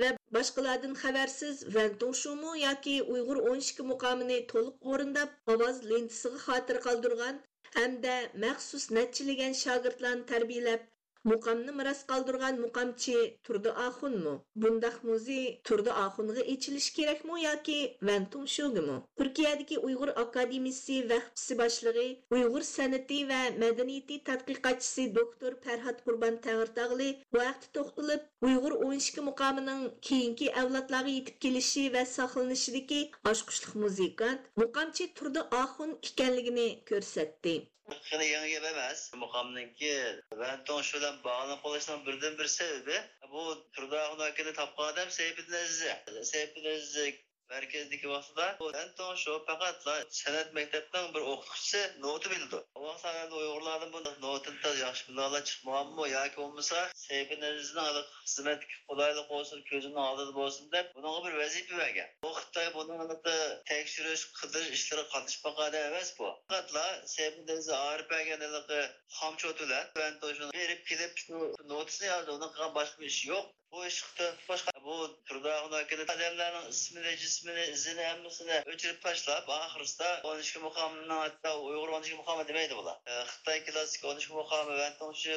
ۋە باشقىلاردىن خەۋەرسىز ۋەن توڭشۇمۇ ياكى ئۇيغۇر ئون ئىككى مۇقامىنى تولۇق ئورۇنداپ، ئاۋاز لېنتىسىغا خاتىرە قالدۇرغان ھەمدە مەخسۇس نەچچىلىگەن شاگىرتلارنى تەربىيەلەپ، مۇقامنى مىراس قالدۇرغان مۇقامچى تۇردى ئاخۇنمۇ؟ بۇنداق مۇزېي تۇردى ئاخۇنغا ئېچىلىشى كېرەكمۇ ياكى ۋەن توڭشۇگىمۇ؟ تۈركىيەدىكى ئۇيغۇر ئاكادېمىيىسى ۋەخپىسى باشلىقى، ئۇيغۇر سەنئىتى ۋە مەدەنىيىتى تەتقىقاتچىسى دوكتور پەرھات قۇربان تەڭرىتاغلى بۇ ھەقتە توختىلىپ، ئۇيغۇر ئون ئىككى مۇقامىنىڭ كېيىنكى ئەۋلادلارغا يېتىپ كېلىشى ۋە ساقلىنىشىدىكى ئاچقۇچلۇق مۇزىكانت، مۇقامچى تۇردى ئاخۇن ئىكەنلىكىنى كۆرسەتتى. خېلى يېڭى گەپ ئەمەس. مۇقامنىڭكى ۋەن توڭشۇ بىلەن باغلىنىپ قېلىشنىڭ بىردىنبىر سەۋەبى، بۇ تۇردى ئاخۇن ئاكىنى تاپقان ئادەم سەيپىدىن ئەزىز. سەيپىدىن ئەزىز مەركەزدىكى ۋاقتىدا بۇ ۋەن توڭشۇ پەقەتلا سەنئەت مەكتەپنىڭ بىر ئوقۇتقۇچىسى، نوتا بىلىدۇ. ئۇ ۋاقىتلاردا ئۇيغۇرلاردىن بۇ نوتىنى تازا ياخشى بىلىدىغانلار چىقمىغانمۇ ياكى بولمىسا سەيپىدىن ئەزىزنىڭ ھېلىقى خىزمەتتىكى قولايلىق بولسۇن، كۆزىنىڭ ئالدىدا بولسۇن دەپ، بۇنىڭغا بىر ۋەزىپە بەرگەن. بۇ خىتاي بۇنىڭ ھېلىقى تەكشۈرۈش، قىدىرىش ئىشلىرىغا قاتنىشىپ باققان ئادەم ئەمەس بۇ. پەقەتلا سەيپىدىن ئەزىز ئايرىپ بەرگەن ھېلىقى خامچوت بىلەن ۋەن توڭشۇنىڭ بېرىپ كېلىپ شۇ نوتىسىنى يازدى. ئۇنىڭ قىلغان باشقا بىر ئىشى يوق. بۇ ئىشقا تۆھپە قوشقان بۇ تۇردى ئاخۇن ئاكىنى ئادەملەرنىڭ ئىسمىنى، جىسمىنى، ئىزىنى، ھەممىسىنى ئۆچۈرۈپ تاشلاپ، ئاخىرسىدا ئون ئىككى مۇقامنىڭ، ھەتتا ئۇيغۇر ئون ئىككى مۇقامى دېمەيدۇ بۇلار. ئە، خىتاي كلاسسىك ئون ئىككى مۇقامى ۋەن توڭشۇ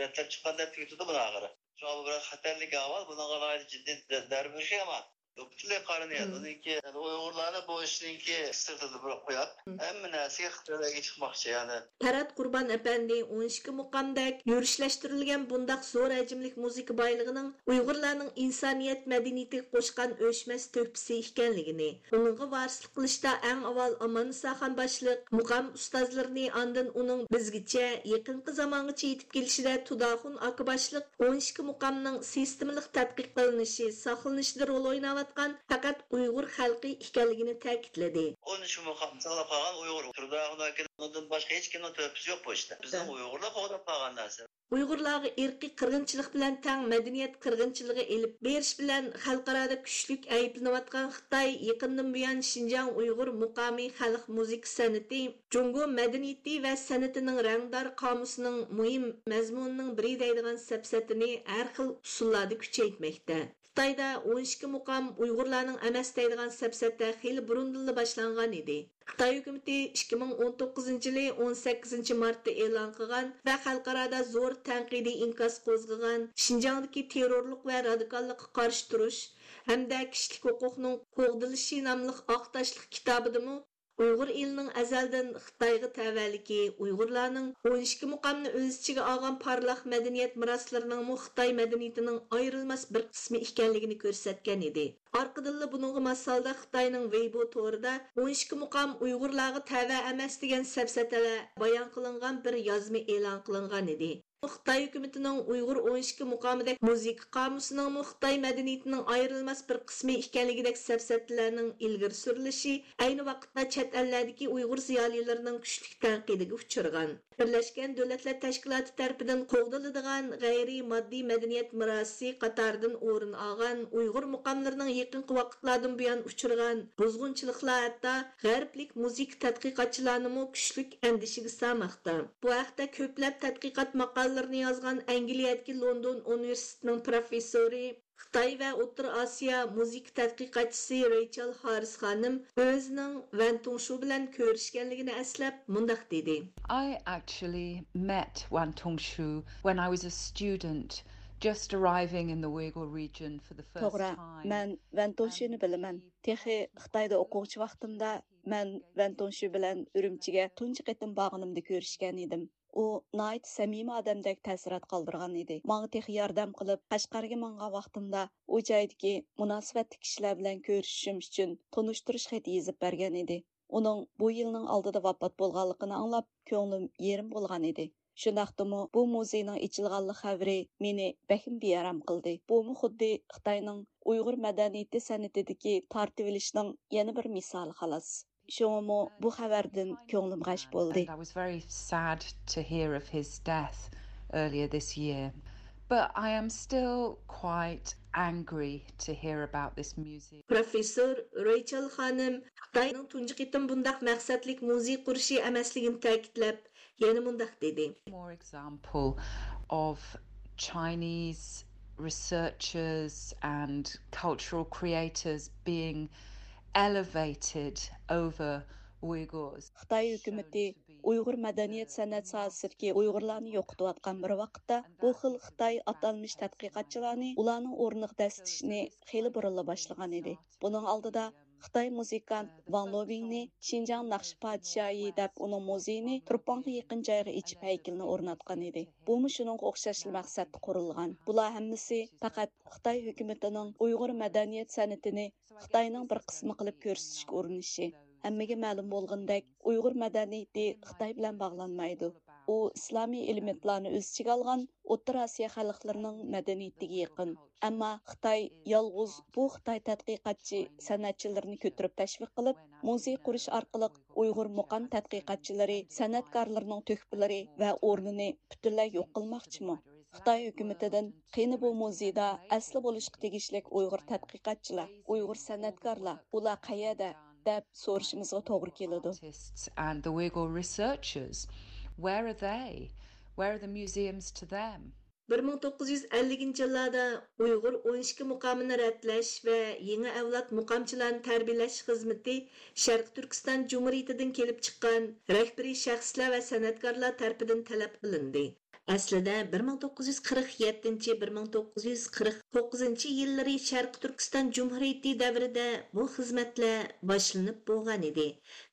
رەتلەپ چىققان دەپ تۈگىتىدۇ بۇنى ئاخىرى. شۇڭا بۇ بىر خەتەرلىك ئەھۋال، بۇنىڭغا ناھايىتى جىددىي دە-، دەربېرىشى يامان. پۈتۈنلەي قارىنى يەتتى. ئۇنىڭكى ئۇيغۇرلارنى بۇ ئىشنىڭكى سىرتىدا بىر قويۇپ، ھەممە نەرسىگە خىتايلارغا چىقماقچى، يەنى. پەرھات قۇربان ئەپەندى ئون ئىككى مۇقامدەك يۈرۈشلەشتۈرۈلگەن بۇنداق زور ھەجىملىك مۇزىكا بايلىقىنىڭ ئۇيغۇرلارنىڭ ئىنسانىيەت مەدەنىيىتىگە قوشقان ئۆچمەس تۆھپىسى ئىكەنلىكىنى، ئۇنىڭغا ۋارىسلىق قىلىشتا ئەڭ ئاۋۋال ئاماننىسا خان باشلىق مۇقام ئۇستازلىرىنى، ئاندىن ئۇنىڭ بىزگىچە يېقىنقى زامانغىچە يېتىپ كېلىشىدە تۇداخۇن ئاكا باشلىق ئون ئىككى مۇقامنىڭ سىستېمىلىق تەتقىق قىلىنىشى، ساقلىنىشىدا رول ئويناۋاتقان پەقەت ئۇيغۇر خەلقى ئىكەنلىكىنى تەكىتلىدى. ئون ئىككى مۇقام ساقلاپ قالغان ئۇيغۇر. تۇردى ئاخۇن ئاكىنىڭ ئۇنىڭدىن باشقا ھېچكىمنىڭ تۆھپىسى يوق بۇ ئىشتا. بىزنىڭ ئۇيغۇرلار قوغداپ قالغان نەرسە. ئۇيغۇرلارغا ئىرقىي قىرغىنچىلىق بىلەن تەڭ مەدەنىيەت قىرغىنچىلىقى ئېلىپ بېرىش بىلەن خەلقئارادا كۈچلۈك ئەيىبلىنىۋاتقان خىتاي يېقىندىن بۇيان شىنجاڭ ئۇيغۇر مۇقامى خەلق مۇزىكا سەنئىتى، جۇڭگو مەدەنىيىتى ۋە سەنئىتىنىڭ رەڭدار قامۇسىنىڭ مۇھىم مەزمۇنىنىڭ بىرى دەيدىغان سەپسەتىنى ھەر خىل ئۇسۇللاردا كۈچەيتمەكتە. خىتايدا ئون ئىككى مۇقام ئۇيغۇرلارنىڭ ئەمەس دەيدىغان سەپسەتە خېلى بۇرۇندىنلا باشلانغان ئىدى. خىتاي ھۆكۈمىتى ئىككى مىڭ ئون توققۇزىنچى يىلى ئون سەككىزىنچى مارتتا ئېلان قىلغان ۋە خەلقئارادا زور تەنقىدىي ئىنكاس قوزغىغان شىنجاڭدىكى تېررورلۇق ۋە رادىكاللىققا قارشى تۇرۇش ھەمدە كىشىلىك ھوقۇقنىڭ قوغدىلىشى ناملىق ئاق تاشلىق كىتابىدىمۇ ئۇيغۇر ئېلىنىڭ ئەزەلدىن خىتايغا تەۋەلىكى، ئۇيغۇرلارنىڭ ئون ئىككى مۇقامنى ئۆز ئىچىگە ئالغان پارلاق مەدەنىيەت مىراسلىرىنىڭمۇ خىتاي مەدەنىيىتىنىڭ ئايرىلماس بىر قىسمى ئىكەنلىكىنى كۆرسەتكەن ئىدى. ئارقىدىنلا بۇنىڭغا ماس ھالدا خىتاينىڭ ۋېيبو تورىدا ئون ئىككى مۇقام ئۇيغۇرلارغا تەۋە ئەمەس دېگەن سەپسەتىلەر بايان قىلىنغان بىر يازما ئېلان قىلىنغان ئىدى. خىتاي ھۆكۈمىتىنىڭ ئۇيغۇر ئون ئىككى مۇقامىدەك مۇزىكا قامۇسىنىڭمۇ خىتاي مەدەنىيىتىنىڭ ئايرىلماس بىر قىسمى ئىكەنلىكىدەك سەپسەتىلەرنىڭ ئىلگىرى سۈرۈلۈشى ئەينى ۋاقىتتا چەت ئەللەردىكى ئۇيغۇر زىيالىيلىرىنىڭ كۈچلۈك تەنقىدىگە ئۇچرىغان. بىرلەشكەن دۆلەتلەر تەشكىلاتى تەرىپىدىن قوغدىلىدىغان غەيرىي ماددىي مەدەنىيەت مىراسى قاتارىدىن ئورۇن ئالغان ئۇيغۇر مۇقاملىرىنىڭ يېقىنقى ۋاقىتلاردىن بۇيان ئۇچرىغان بۇزغۇنچىلىقلار ھەتتا غەربلىك مۇزىكا تەتقىقاتچىلارنىمۇ كۈچلۈك ئەندىشىگە سالماقتا. بۇ ھەقتە كۆپلەپ تەتقىقات ماقالىلىرىنى يازغان ئەنگلىيەدىكى لوندون ئۇنىۋېرسىتېتىنىڭ پروفېسسورى، خىتاي ۋە ئوتتۇرا ئاسىيا مۇزىكا تەتقىقاتچىسى رېيچېل ھاررىس خانىم ئۆزىنىڭ ۋەن تۇڭشۇ بىلەن كۆرۈشكەنلىكىنى ئەسلەپ مۇنداق دېدى. I actually met Wan Tongshu when I was a student, just arriving in the Uyghur region for the first توغرا، time. مەن ۋەن تۇڭشۇنى بىلىمەن. تېخى خىتايدا ئوقۇغۇچى ۋاقتىمدا مەن ۋەن تۇڭشۇ بىلەن ئۈرۈمچىگە تۇنجى قېتىم بارغىنىمدا كۆرۈشكەن ئىدىم. ئۇ ناھايىتى سەمىمىي ئادەمدەك تەسىرات قالدۇرغان ئىدى. ماڭا تېخى ياردەم قىلىپ، قەشقەرگە ماڭغان ۋاقتىمدا ئۇ جايدىكى مۇناسىۋەتلىك كىشىلەر بىلەن كۆرۈشۈشۈم ئۈچۈن تونۇشتۇرۇش خېتى يېزىپ بەرگەن ئىدى. ئۇنىڭ بۇ يىلنىڭ ئالدىدا ۋاپات بولغانلىقىنى ئاڭلاپ، كۆڭلۈم يېرىم بولغان ئىدى. شۇنداقتىمۇ بۇ مۇزېينىڭ ئېچىلغانلىق خەۋىرى مېنى بەكمۇ بىئارام قىلدى. بۇمۇ خۇددى خىتاينىڭ ئۇيغۇر مەدەنىيىتى سەنئىتىدىكى تارتىۋېلىشنىڭ يەنە بىر مىسالى خالاس. شۇڭىمۇ بۇ خەۋەردىن كۆڭلۈم غەش بولدى. And I was very sad to hear of his death earlier this year. But I am still quite angry to hear about this museum. پروفېسسور رېيچېل خانىم خىتاينىڭ تۇنجى قېتىم بۇنداق مەقسەتلىك مۇزېي قۇرۇشى ئەمەسلىكىنى تەكىتلەپ، يەنە مۇنداق دېدى. More example of Chinese researchers and cultural creators being elevated over Uyghurs. خىتاي ھۆكۈمىتى ئۇيغۇر مەدەنىيەت سەنئەت ساھەسىدىكى ئۇيغۇرلارنى يوقىتىۋاتقان بىر ۋاقىتتا، بۇ خىل خىتاي ئاتالمىش تەتقىقاتچىلارنى ئۇلارنىڭ ئورنىغا دەسسىتىشنى خېلى بۇرۇنلا باشلىغان ئىدى. بۇنىڭ ئالدىدا خىتاي مۇزىكانت ۋاڭ لوبىڭنى شىنجاڭ ناخشا پادىشاھى دەپ ئۇنىڭ مۇزېيىنى تۇرپانغا يېقىن جايغا ئېچىپ ھەيكىلىنى ئورناتقان ئىدى. بۇمۇ شۇنىڭغا ئوخشاشلا مەقسەتتە قۇرۇلغان. بۇلار ھەممىسى پەقەت خىتاي ھۆكۈمىتىنىڭ ئۇيغۇر مەدەنىيەت سەنئىتىنى خىتاينىڭ بىر قىسمى قىلىپ كۆرسىتىشكە ئۇرۇنۇشى. ھەممىگە مەلۇم بولغىنىدەك، ئۇيغۇر مەدەنىيىتى خىتاي بىلەن باغلانمايدۇ. ئۇ ئىسلامىي ئېلېمېنتلارنى ئۆز ئىچىگە ئالغان ئوتتۇرا ئاسىيا خەلقلىرىنىڭ مەدەنىيىتىگە يېقىن. ئەمما خىتاي يالغۇز بۇ خىتاي تەتقىقاتچى سەنئەتچىلىرىنى كۆتۈرۈپ تەشۋىق قىلىپ، مۇزېي قۇرۇش ئارقىلىق ئۇيغۇر مۇقام تەتقىقاتچىلىرى، سەنئەتكارلىرىنىڭ تۆھپىلىرى ۋە ئورنىنى پۈتۈنلەي يوق قىلماقچىمۇ؟ خىتاي ھۆكۈمىتىدىن قېنى بۇ مۇزېيدا ئەسلى بولۇشقا تېگىشلىك ئۇيغۇر تەتقىقاتچىلار، ئۇيغۇر سەنئەتكارلار، ئۇلار قەيەردە؟ دەپ سورىشىمىزغا توغرا كېلىدۇ. Artists and the Uyghur researchers, where are they? Where are the museums to them? بىر مىڭ توققۇز يۈز ئەللىكىنچى يىللاردا ئۇيغۇر ئون ئىككى مۇقامىنى رەتلەش ۋە يېڭى ئەۋلاد مۇقامچىلارنى تەربىيەلەش خىزمىتى شەرقىي تۈركىستان جۇمھۇرىيىتىدىن كېلىپ چىققان رەھبىرىي شەخسلەر ۋە سەنئەتكارلار تەرىپىدىن تەلەپ قىلىندى. ئەسلىدە بىر مىڭ توققۇز يۈز قىرىق يەتتىنچى، بىر مىڭ توققۇز يۈز قىرىق توققۇزىنچى يىللىرى شەرقىي تۈركىستان جۇمھۇرىيىتى دەۋرىدە بۇ خىزمەتلەر باشلىنىپ بولغان ئىدى.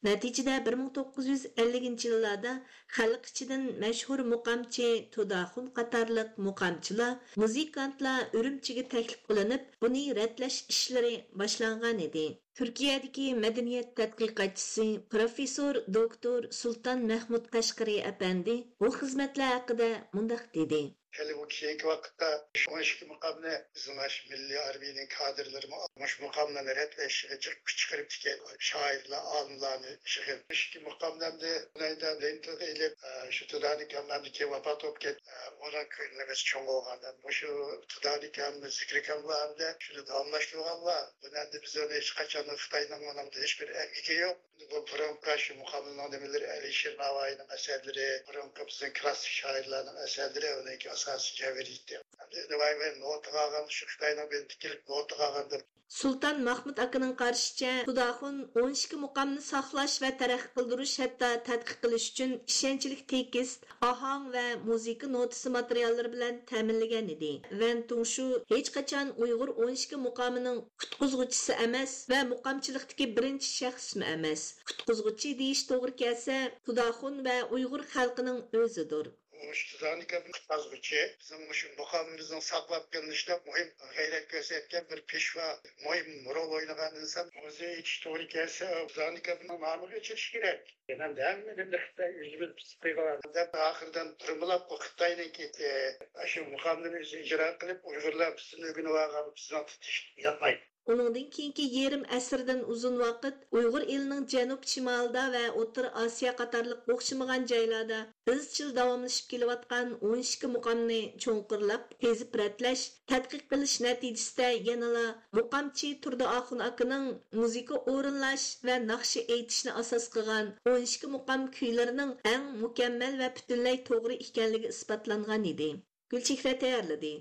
نەتىجىدە بىر مىڭ توققۇز يۈز ئەللىكىنچى يىللاردا خەلق ئىچىدىن مەشھۇر مۇقامچى تۇداخۇن قاتارلىق مۇقامچىلار، مۇزىكانتلار ئۈرۈمچىگە تەكلىپ قىلىنىپ، بۇنى رەتلەش ئىشلىرى باشلانغان ئىدى. تۈركىيەدىكى مەدەنىيەت تەتقىقاتچىسى، پروفېسسور دوكتور سۇلتان مەھمۇد قەشقىرى ئەپەندى بۇ خىزمەتلەر ھەققىدە مۇنداق دېدى. ھېلى بۇ كېيىنكى ۋاقىتتا شۇ ئون ئىككى مۇقامنى بىزنىڭ شۇ مىللىي ھارۋىنىڭ كادىرلىرىمۇ مۇشۇ مۇقاملارنى رەتلەشكە جىق كۈچ چىقىرىپتىكەن. شائىرلار، ئالىملارنى يىغىپ، مۇشۇ ئىككى مۇقامنى ئەمدى بۇنى ئەمدى لېنتىگە ئېلىپ، ئە، شۇ تۇدانىكام ئەمدى كېيىن ۋاپات بولۇپ كەتتى. ئە، ئۇنىڭ كۆڭلىمىز چوڭ بولغان. مۇشۇ تۇدانىكام، زىكرىكاملار ئەمدى شۇنى داۋاملاشتۇرغانلار. بۇنى ئەمدى بىز ئۇنى ھېچقاچان خىتاينىڭ ئۇنىڭدا ھېچبىر ئەمگىكى يوق. بۇ بۇرۇنقى شۇ مۇقامنىڭ نېمىلىرى، ئەلىشىر ناۋايىنىڭ ئەسەرلىرى، بۇرۇنقى بىزنىڭ كلاسسىك شائىرلارنىڭ ئەسەرلىرى ئۇنىڭكى ئاساسىي جەۋھىرىيىتى. ئەمدى نېمە، نوتىغا ئالغان، شۇ خىتاينىڭ بىلىدە كېلىپ نوتىغا ئالغاندىن. سۇلتان مەھمۇد ئاكىنىڭ قارىشىچە، تۇداخۇن ئون ئىككى مۇقامنى ساقلاش ۋە تەرەققىي قىلدۇرۇش، ھەتتا تەتقىق قىلىش ئۈچۈن ئىشەنچلىك تېكىست، ئاھاڭ ۋە مۇزىكا نوتىسى ماتېرىياللىرى بىلەن تەمىنلىگەن ئىدى. ۋەن تۇڭشۇ ھېچقاچان ئۇيغۇر ئون ئىككى مۇقامىنىڭ قۇتقۇزغۇچىسى ئەمەس ۋە مۇقامچىلىقتىكى بىرىنچى شەخسمۇ ئەمەس. قۇتقۇزغۇچى دېيىش توغرا كەلسە، تۇداخۇن ۋە ئۇيغۇر خەلقىنىڭ ئۆزىدۇر. مۇشۇ تۇدانىكامنى قۇتقۇزغۇچى، بىزنىڭ مۇشۇ مۇقامىمىزنىڭ ساقلاپ قېلىنىشىدا مۇھىم غەيرەت كۆرسەتكەن بىر پېشۋا، مۇھىم رول ئوينىغان ئىنسان. مۇزېي ئېچىش توغرا كەلسە، تۇدانىكامنىڭ نامىغا ئېچىلىشى كېرەك. ئەمدى ھەممىنى خىتاي ئۆزىمىز پىس قىلغان دەپ، ئاخىرىدىن بىرمىلاپ بۇ خىتاينىڭكى، ئە، شۇ مۇقاملىرىنى ئۆزى ئىجرا قىلىپ، ئۇيغۇرلار بىزدىن ئۆگىنىپ ئالغان، بىزنىڭ تۇتۇش ياقمايدۇ. ئۇنىڭدىن كېيىنكى يېرىم ئەسىردىن ئۇزۇن ۋاقىت ئۇيغۇر ئېلىنىڭ جەنۇب شىمالىدا ۋە ئوتتۇرا ئاسىيا قاتارلىق ئوخشىمىغان جايلاردا ئىزچىل داۋاملىشىپ كېلىۋاتقان ئون ئىككى مۇقامنى چوڭقۇرلاپ قېزىپ رەتلەش، تەتقىق قىلىش نەتىجىسىدە يەنىلا مۇقامچى تۇردى ئاخۇن ئاكىنىڭ مۇزىكا ئورۇنلاش ۋە ناخشا ئېيتىشنى ئاساس قىلغان ئون ئىككى مۇقام كۈيلىرىنىڭ ئەڭ مۇكەممەل ۋە پۈتۈنلەي توغرا ئىكەنلىكى ئىسپاتلانغان ئىدى. گۈلچېھرە تەييارلىدى.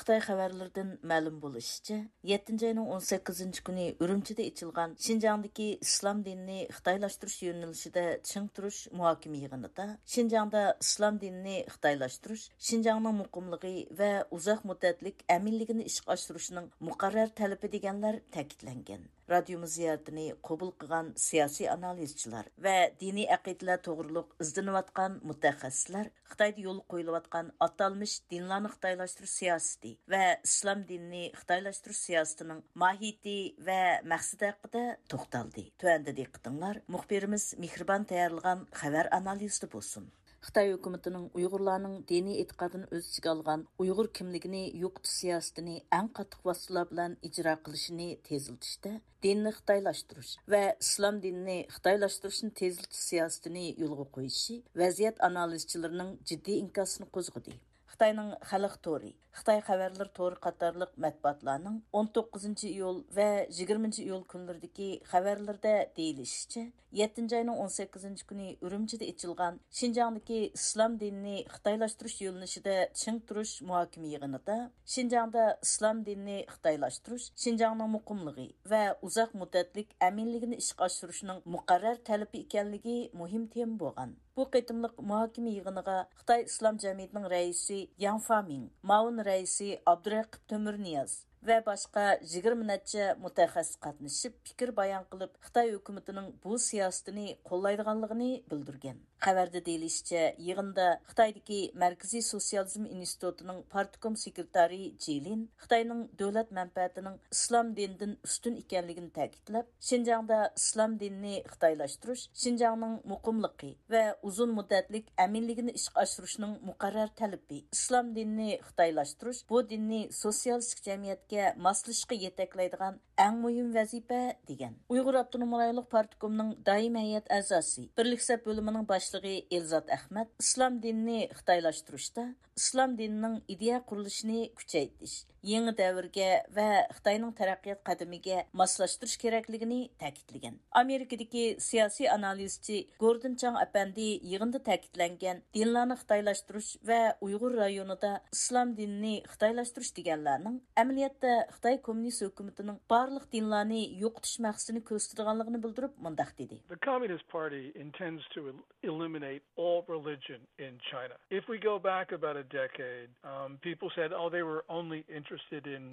خىتاي خەۋەرلىرىدىن مەلۇم بولۇشىچە، يەتتىنچى ئاينىڭ ئون سەككىزىنچى كۈنى ئۈرۈمچىدە ئېچىلغان شىنجاڭدىكى ئىسلام دىنىنى خىتايلاشتۇرۇش يۆنىلىشىدە چىڭ تۇرۇش مۇھاكىمە يىغىنىدا شىنجاڭدا ئىسلام دىنىنى خىتايلاشتۇرۇش شىنجاڭنىڭ مۇقىملىقى ۋە ئۇزاق مۇددەتلىك ئەمىنلىكىنى ئىشقا ئاشۇرۇشنىڭ مۇقەررەر تەلىپى دېگەنلەر تەكىتلەنگەن. رادىيومىز زىيارىتىنى قوبۇل قىلغان سىياسىي ئانالىزچىلار ۋە دىنىي ئەقىدىلەر توغرۇلۇق ئىزدىنىۋاتقان مۇتەخەسسىسلەر خىتايدا يولغا قويۇلۇۋاتقان ئاتالمىش دىنلارنى خىتايلاشتۇرۇش سىياسىتى ۋە ئىسلام دىنىنى خىتايلاشتۇرۇش سىياسىتىنىڭ ماھىيىتى ۋە مەقسىتى ھەققىدە توختالدى. تۆۋەندە دىققىتىڭلار مۇخبىرىمىز مېھرىبان تەييارلىغان خەۋەر ئانالىزىدا بولسۇن. خىتاي ھۆكۈمىتىنىڭ ئۇيغۇرلارنىڭ دىنىي ئېتىقادىنى ئۆز ئىچىگە ئالغان ئۇيغۇر كىملىكىنى يوقىتىش سىياسىتىنى ئەڭ قاتتىق ۋاسىتىلار بىلەن ئىجرا قىلىشىنى تېزلىتىشتە، دىننى خىتايلاشتۇرۇش ۋە ئىسلام دىنىنى خىتايلاشتۇرۇشنى تېزلىتىش سىياسىتىنى يولغا قويۇشى ۋەزىيەت ئانالىزچىلىرىنىڭ جىددىي ئىنكاسىنى قوزغىدى. خىتاينىڭ خەلق تورى، خىتاي خەۋەرلىرى تورى قاتارلىق مەتبۇئاتلارنىڭ ئون توققۇزىنچى ئىيۇل ۋە يىگىرمىنچى ئىيۇل كۈنلىرىدىكى خەۋەرلىرىدە دېيىلىشىچە، يەتتىنچى ئاينىڭ ئون سەككىزىنچى كۈنى ئۈرۈمچىدە ئېچىلغان شىنجاڭدىكى ئىسلام دىنىنى خىتايلاشتۇرۇش يۆنىلىشىدە چىڭ تۇرۇش مۇھاكىمە يىغىنىدا، شىنجاڭدا ئىسلام دىنىنى خىتايلاشتۇرۇش شىنجاڭنىڭ مۇقىملىقى ۋە ئۇزاق مۇددەتلىك ئەمىنلىكىنى ئىشقا ئاشۇرۇشنىڭ مۇقەررەر تەلىپى ئىكەنلىكى مۇھىم تېما بولغان. بۇ قېتىملىق مۇھاكىمە يىغىنىغا خىتاي ئىسلام جەمئىيىتىنىڭ رەئىسى ياڭ فامىڭ، مۇئاۋىن رەئىسى ئابدۇرەقىپ تۆمۈرنىياز ۋە باشقا يىگىرمە نەچچە مۇتەخەسسىس قاتنىشىپ، پىكىر بايان قىلىپ، خىتاي ھۆكۈمىتىنىڭ بۇ سىياسىتىنى قوللايدىغانلىقىنى بىلدۈرگەن. خەۋەردە دېيىلىشىچە، يىغىندا خىتايدىكى مەركىزىي سوتسىيالىزم ئىنستىتۇتىنىڭ پارتكوم سېكرېتارى جى لىن خىتاينىڭ دۆلەت مەنپەئەتىنىڭ ئىسلام دىنىدىن ئۈستۈن ئىكەنلىكىنى تەكىتلەپ، شىنجاڭدا ئىسلام دىنىنى خىتايلاشتۇرۇش شىنجاڭنىڭ مۇقىملىقى ۋە ئۇزۇن مۇددەتلىك ئەمىنلىكىنى ئىشقا ئاشۇرۇشنىڭ مۇقەررەر تەلىپى، ئىسلام دىنىنى خىتايلاشتۇرۇش بۇ دىننى سوتسىيالىستىك جەمئىيەتكە ماسلىشىشقا يېتەكلەيدىغان ئەڭ مۇھىم ۋەزىپە، دېگەن. ئۇيغۇر ئاپتونوم رايونلۇق پارتكومنىڭ دائىمىي ھەيئەت ئەزاسى، بىرلىك سەپ بۆلۈمىنىڭ باشلىقى ئېلزات ئەخمەت ئىسلام دىنىنى خىتايلاشتۇرۇشتا ئىسلام دىنىنىڭ ئىدىيە قۇرۇلۇشىنى كۈچەيتىش، يېڭى دەۋرگە ۋە خىتاينىڭ تەرەققىيات قەدىمىگە ماسلاشتۇرۇش كېرەكلىكىنى تەكىتلىگەن. ئامېرىكىدىكى سىياسىي ئانالىزچى گوردون چاڭ ئەپەندى يىغىندا تەكىتلەنگەن دىنلارنى خىتايلاشتۇرۇش ۋە ئۇيغۇر رايونىدا ئىسلام دىنىنى خىتايلاشتۇرۇش دېگەنلەرنىڭ ئەمەلىيەتتە خىتاي كوممۇنىست ھۆكۈمىتىنىڭ بارلىق دىنلارنى يوقىتىش مەقسىتىنى كۆرسىتىدىغانلىقىنى بىلدۈرۈپ مۇنداق دېدى. The Communist Party intends to el- eliminate all religion in China. If we go back about a decade, um, people said, oh, they were only interested in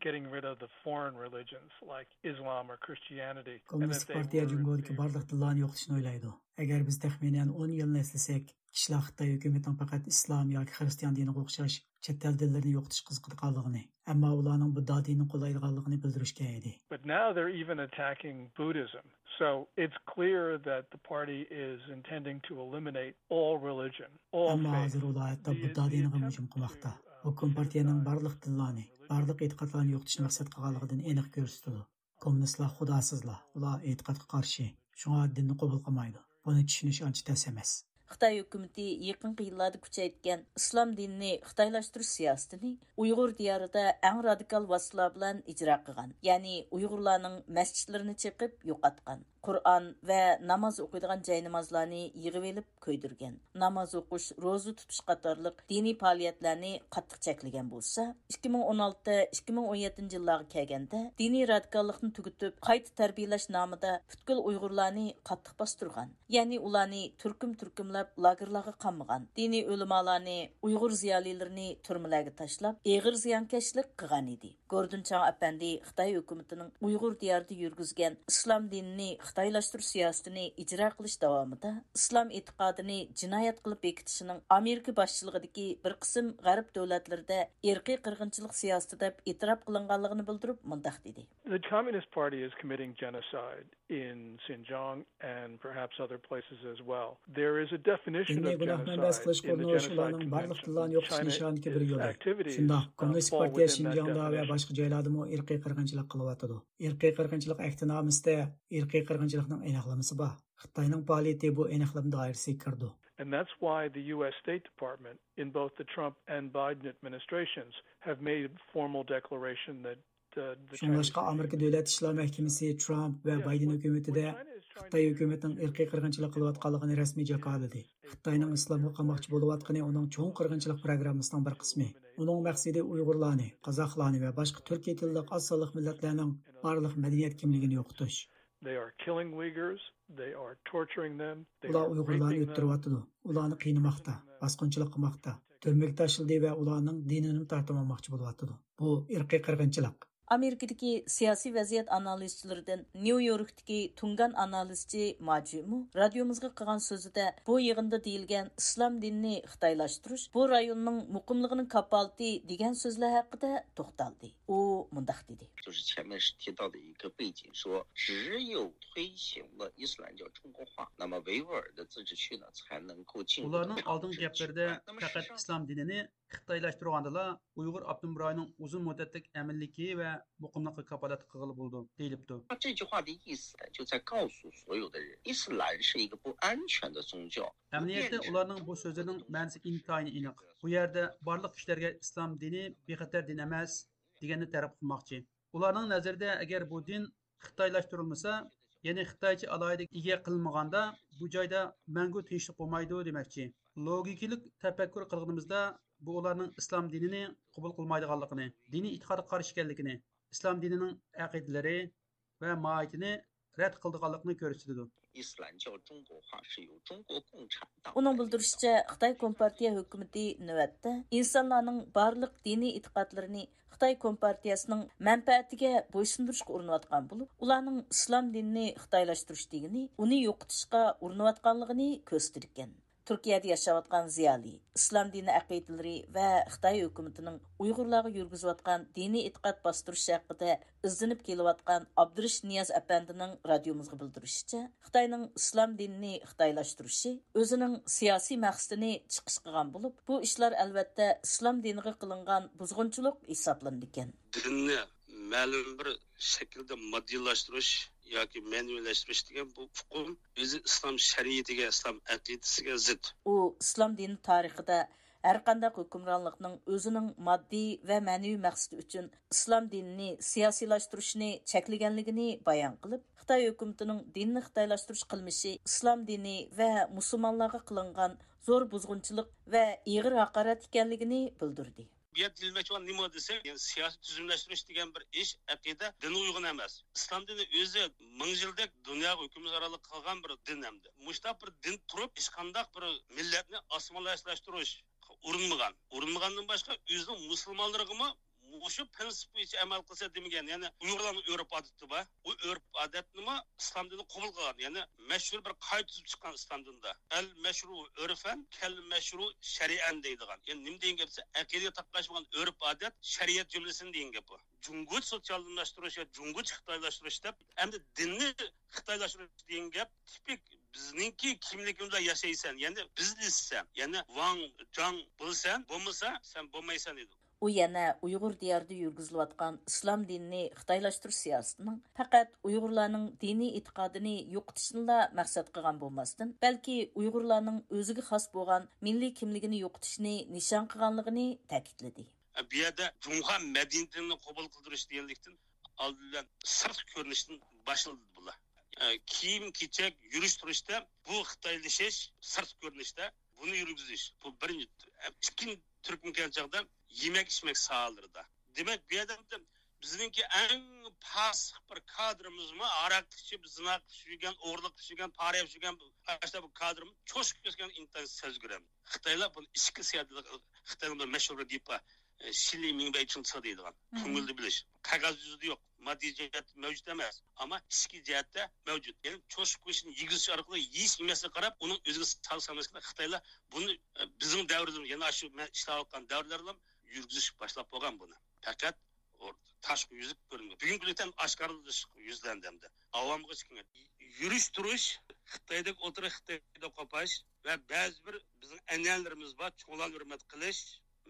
getting rid of the foreign religions like Islam or Christianity. And كوممۇنىست that they پارتىيە were جۇڭگودىكى بارلىق دىنلارنى يوقىتىشنى ئويلايدۇ. ئەگەر بىز تەخمىنەن ئون يىلنى ئەسلىسەك، كىشىلەر خىتاي ھۆكۈمىتىنىڭ پەقەت ئىسلام ياكى خىرىستىيان دىنىغا ئوخشاش چەت ئەل دىنلىرىنى يوقىتىشقا قىزىقىدىغانلىقىنى، ئەمما ئۇلارنىڭ بۇددا دىنىنى قوللايدىغانلىقىنى بىلدۈرۈشكەن ئىدى. But now they're even attacking Buddhism. So it's clear that the party is intending to eliminate all religion, all faith. ئەمما ھازىر ئۇلار ھەتتا بۇددا دىنىغىمۇ ھۇجۇم قىلماقتا. بۇ كومپارتىيەنىڭ بارلىق دىنلارنى، بارلىق ئېتىقادلارنى يوقىتىشنى مەقسەت قىلغانلىقىدىن ئېنىق كۆرسىتىدۇ. كوممۇنىستلار خۇداسىزلار، ئۇلار ئېتىقادقا قارشى، شۇڭا دىننى قوبۇل قىلمايدۇ. بۇنى چۈشىنىش ئانچە تەس ئەمەس. خىتاي ھۆكۈمىتى يېقىنقى يىللاردا كۈچەيتكەن ئىسلام دىنىنى خىتايلاشتۇرۇش سىياسىتىنى ئۇيغۇر دىيارىدا ئەڭ رادىكال ۋاسىتىلار بىلەن ئىجرا قىلغان، يەنى ئۇيغۇرلارنىڭ مەسچىتلىرىنى چېقىپ يوقاتقان، قۇرئان ۋە ناماز ئوقۇيدىغان جاينامازلارنى يىغىۋېلىپ كۆيدۈرگەن، ناماز ئوقۇش، روزا تۇتۇش قاتارلىق دىنىي پائالىيەتلەرنى قاتتىق چەكلىگەن بولسا، ئىككى مىڭ ئون ئالتە، ئىككى مىڭ ئون يەتتىنچى يىللارغا كەلگەندە دىنىي رادىكاللىقنى تۈگىتىپ، قايتا تەربىيەلەش نامىدا پۈتكۈل ئۇيغۇرلارنى قاتتىق باستۇرغان. يەنى ئۇلارنى تۈركۈم-تۈركۈملەپ لاگېرلارغا قامىغان. دىنىي ئۆلىمالارنى، ئۇيغۇر زىيالىيلىرىنى تۈرمىلەرگە تاشلاپ، ئېغىر زىيانكەشلىك قىلغان ئىدى. گوردون چاڭ ئەپەندى خىتاي ھۆكۈمىتىنىڭ ئۇيغۇر دىيارىدا يۈرگۈزگەن ئىسلام دىنىنى خىتايلاشتۇرۇش سىياسىتىنى ئىجرا قىلىش داۋامىدا ئىسلام ئېتىقادىنى جىنايەت قىلىپ بېكىتىشىنىڭ ئامېرىكا باشچىلىقىدىكى بىر قىسىم غەرب دۆلەتلىرىدە ئىرقىي قىرغىنچىلىق سىياسىتى دەپ ئېتىراپ قىلىنغانلىقىنى بىلدۈرۈپ مۇنداق دېدى. The Communist Party is committing genocide in Xinjiang and perhaps other places as well. There is a definition of genocide in the Genocide Convention. China is activities fall within that definition. شۇنداق، كوممۇنىست پارتىيە شىنجاڭدا ۋە باشقا جايلاردىمۇ ئىرقىي قىرغىنچىلىق قىلىۋاتىدۇ. ئىرقىي قىرغىنچىلىق ئەھدىنامىسىدە ئىرقىي قىرغىنچىلىقنىڭ ئېنىقلىمىسى بار. خىتاينىڭ پائالىيىتى بۇ ئېنىقلىما دائىرىسىگە كىرىدۇ. And that's why the U S State Department in both the Trump and Biden administrations have made a formal declaration that, uh, the Chinese شۇڭلاشقا ئامېرىكا دۆلەت ئىشلار مەھكىمىسى ترامپ ۋە بايدېن ھۆكۈمىتىدە خىتاي ھۆكۈمىتىنىڭ ئىرقىي قىرغىنچىلىق قىلىۋاتقانلىقىنى رەسمىي جاكارلىدى. خىتاينىڭ ئىسلامغا قاماقچى بولۇۋاتقىنى ئۇنىڭ چوڭ قىرغىنچىلىق پروگراممىسىنىڭ بىر قىسمى. ئۇنىڭ مەقسىتى ئۇيغۇرلارنى، قازاقلارنى ۋە باشقا تۈركىي تىللىق ئاز سانلىق مىللەتلەرنىڭ بارلىق مەدەنىيەت كىملىكىنى يوقىتىش. They are killing Uyghurs, they are torturing them, they are raping them. ئۇلار ئۇيغۇرلارنى ئۆلتۈرۈۋاتىدۇ، ئۇلارنى قىينىماقتا، باسقۇنچىلىق قىلماقتا، تۈرمىگە تاشلىدى ۋە ئۇلارنىڭ دىنىنىمۇ تارتىۋالماقچى بولۇۋاتىدۇ. بۇ ئىرقىي قىرغىنچىلىق. ئامېرىكىدىكى سىياسىي ۋەزىيەت ئانالىزچىلىرىدىن نيۇ يوركتىكى تۇڭگان ئانالىزچى ماجىمۇ رادىيومىزغا قىلغان سۆزىدە بۇ يىغىندا دېيىلگەن ئىسلام دىنىنى خىتايلاشتۇرۇش بۇ رايوننىڭ مۇقىملىقىنىڭ كاپالىتى دېگەن سۆزلەر ھەققىدە توختالدى. ئۇ مۇنداق دېدى. 就是前面是提到的一个背景，说只有推行了伊斯兰教中国化，那么维吾尔的自治区呢才能够进入到 ئۇلارنىڭ ئالدىنقى گەپلىرىدە پەقەت ئىسلام دىنىنى خىتايلاشتۇرغاندىلا، ئۇيغۇر ئاپتونوم رايونىنىڭ ئۇزۇن مۇددەتلىك ئەمىنلىكى ۋە مۇقىملىققا كاپالەتلىك قىلغىلى بولىدۇ، دېيىلىپتۇ. 他这句话的意思就在告诉所有的人，伊斯兰是一个不安全的宗教。 ئەمەلىيەتتە ئۇلارنىڭ بۇ سۆزلىرىنىڭ مەنىسى ئىنتايىن ئېنىق. بۇ يەردە بارلىق كىشىلەرگە ئىسلام دىنى بىخەتەر دىن ئەمەس دېگەننى تەرەپ قىلماقچى. ئۇلارنىڭ نەزىرىدە ئەگەر بۇ دىن خىتايلاشتۇرۇلمىسا، يەنى خىتايچە ئالاھىدە ئىگە قىلىنمىغاندا، بۇ جايدا مەڭگۈ تىنچلىق بولمايدۇ دېمەكچى. لوگىكىلىق تەپەككۇر قىلغىنىمىزدا، بۇ ئۇلارنىڭ ئىسلام دىنىنى قوبۇل قىلمايدىغانلىقىنى، دىنىي ئېتىقادقا قارشى ئىكەنلىكىنى، ئىسلام دىنىنىڭ ئەقىدىلىرى ۋە ماھىيىتىنى رەت قىلىدىغانلىقىنى كۆرسىتىدۇ. 伊斯兰教中国化是由中国共产党 ئۇنىڭ بىلدۈرۈشىچە، خىتاي كومپارتىيە ھۆكۈمىتى نۆۋەتتە ئىنسانلارنىڭ بارلىق دىنىي ئېتىقادلىرىنى خىتاي كومپارتىيەسىنىڭ مەنپەئەتىگە بويسۇندۇرۇشقا ئۇرۇنۇۋاتقان بولۇپ، ئۇلارنىڭ ئىسلام دىنىنى خىتايلاشتۇرۇش دېگىنى ئۇنى يوقىتىشقا ئۇرۇنۇۋاتقانلىقىنى كۆرسىتىدىكەن. تۈركىيەدە ياشاۋاتقان زىيالىي، ئىسلام دىنى ئەقىدىلىرى ۋە خىتاي ھۆكۈمىتىنىڭ ئۇيغۇرلارغا يۈرگۈزۈۋاتقان دىنىي ئېتىقاد باستۇرۇشى ھەققىدە ئىزدىنىپ كېلىۋاتقان ئابدۇرېشىت نىياز ئەپەندىنىڭ رادىيومىزغا بىلدۈرۈشىچە، خىتاينىڭ ئىسلام دىنىنى خىتايلاشتۇرۇشى ئۆزىنىڭ سىياسىي مەقسىتىنى چىقىش قىلغان بولۇپ، بۇ ئىشلار ئەلۋەتتە ئىسلام دىنىغا قىلىنغان بۇزغۇنچىلىق ھېسابلىنىدىكەن. دىننى مەلۇم بىر شەكىلدە ماددىيلاشتۇرۇش ياكى مەنىۋىلەشتۈرۈش دېگەن بۇ ئۇقۇم ئۆزى ئىسلام شەرىئىتىگە، ئىسلام ئەقىدىسىگە زىت. ئۇ ئىسلام دىنى تارىخىدا ھەرقانداق ھۆكۈمرانلىقنىڭ ئۆزىنىڭ ماددىي ۋە مەنىۋى مەقسىتى ئۈچۈن ئىسلام دىنىنى سىياسىيلاشتۇرۇشنى چەكلىگەنلىكىنى بايان قىلىپ، خىتاي ھۆكۈمىتىنىڭ دىننى خىتايلاشتۇرۇش قىلمىشى ئىسلام دىنى ۋە مۇسۇلمانلارغا قىلىنغان زور بۇزغۇنچىلىق ۋە ئېغىر ھاقارەت ئىكەنلىكىنى بىلدۈردى. بۇ يەردە دېيىلمەكچى بولغان نېمە دېسەك، يەنى سىياسىي تۈزۈملەشتۈرۈش دېگەن بىر ئىش ئەقىدە دىنغا ئۇيغۇن ئەمەس. ئىسلام دىنى ئۆزى مىڭ يىلدەك دۇنياغا ھۆكۈمرانلىق قىلغان بىر دىن ئەمدى. مۇشۇنداق بىر دىن تۇرۇپ، ھېچقانداق بىر مىللەتنى ئاسسىمىلياتسىلاشتۇرۇش ئۇرۇنمىغان. ئۇرۇنمىغاندىن باشقا، ئۆزىنىڭ مۇسۇلمانلىرىغىمۇ مۇشۇ پرىنسىپ بويىچە ئەمەل قىلسا دېمىگەن. يەنى ئۇيغۇرلارنىڭ ئۆرپ ئادىتى بار. ئۇ ئۆرپ ئادەتنىمۇ ئىسلام دىنى قوبۇل قىلغان. يەنى مەشھۇر بىر قائىدە تۈزۈپ چىققان ئىسلام دىنىدا. ئەل مەشرۇ ئۆرفەن، كەل مەشرۇ شەرئەن دەيدىغان. يەنى نېمە دېگەن گەپ دېسە، ئەقىدىگە تاقاشمىغان ئۆرپ ئادەت، شەرىئەت جۈملىسىنى دېگەن گەپ بۇ. جۇڭگوچە سوتسىيالىزملاشتۇرۇش يا جۇڭگوچە خىتايلاشتۇرۇش دەپ، ئەمدى دىننى خىتايلاشتۇرۇش دېگەن گەپ تىپىك بىزنىڭكى كىملىكىمىزدە ياشايسەن، يەنى بىزنېسسەن، يەنى ۋاڭ جاڭ بولىسەن، بولمىسا سەن بولمايسەن دەيدۇ. ئۇ يەنە ئۇيغۇر دىيارىدا يۈرگۈزۈلۈۋاتقان ئىسلام دىنىنى خىتايلاشتۇرۇش سىياسىتىنىڭ پەقەت ئۇيغۇرلارنىڭ دىنىي ئېتىقادىنى يوقىتىشنىلا مەقسەت قىلغان بولماستىن، بەلكى ئۇيغۇرلارنىڭ ئۆزىگە خاس بولغان مىللىي كىملىكىنى يوقىتىشنى نىشان قىلغانلىقىنى تەكىتلىدى. بۇ يەردە جۇڭخۇا مەدەنىيىتىنى قوبۇل قىلدۇرۇش دېگەنلىكتىن ئالدى بىلەن سىرتقى كۆرۈنۈشتىن باشلىدى بۇلار. ئە، كىيىم-كېچەك، يۈرۈش-تۇرۇشتا بۇ خىتايلىشىش، سىرتقى كۆرۈنۈشتە بۇنى يۈرگۈزۈش. بۇ بىرىنچى. ئىككىنچى تۈركۈم كەلگەن چاغدا يېمەك-ئىچمەك ساھەلىرىدە. دېمەك، بۇ يەردە بىزنىڭكى ئەڭ پاسىق بىر كادىرىمىزمۇ، ھاراق ئىچىپ، زىنا قىلىپ يۈرگەن، ئوغرىلىق قىلىپ يۈرگەن، پارە يەپ يۈرگەن، ئاشۇنداق بىر كادىرىمىز چوشۇپ كەتكەن ئىنتايىن سەزگۈر. خىتايلار بۇنى ئىچكى سىياسەت، خىتاينىڭ بىر مەشھۇر بىر گېپى بار، ئە، شىلى مىڭبەي چىڭچى دەيدىغان. مم. كۆڭۈلدە بىلىش. قەغەز يۈزىدە يوق. ماددىي جەھەتتە مەۋجۇت ئەمەس. ئەمما ئىچكى جەھەتتە مەۋجۇت. يەنى چوشۇپ قويۇشنى يېگۈزۈش ئارقىلىق يېيىش يېمەسلىككە قاراپ، ئۇنىڭ ئۆزىگە سالسا ئەمەسكەن. خىتايلار بۇنى، ئە، بىزنىڭ دەۋرىمىز، يەنى ئاشۇ مەن ئىشلەۋاتقان دەۋرلەردىلا يۈرگۈزۈش باشلاپ بولغان بۇنى. پەقەت ئۇ تاشقى يۈزلۈك كۆرۈنگەن. بۈگۈنكى كۈندە ئاشكارىلىشىپ يۈزلەندى ئەمدى. ئاۋامغا چىقىڭ. يۈرۈش-تۇرۇش، خىتايدەك ئولتۇرۇش، خىتايدا قوپاش ۋە بەزى بىر بىزنىڭ ئەنئەنىلىرىمىز بار، چوڭلارنى ھۆرمەت قىلىش،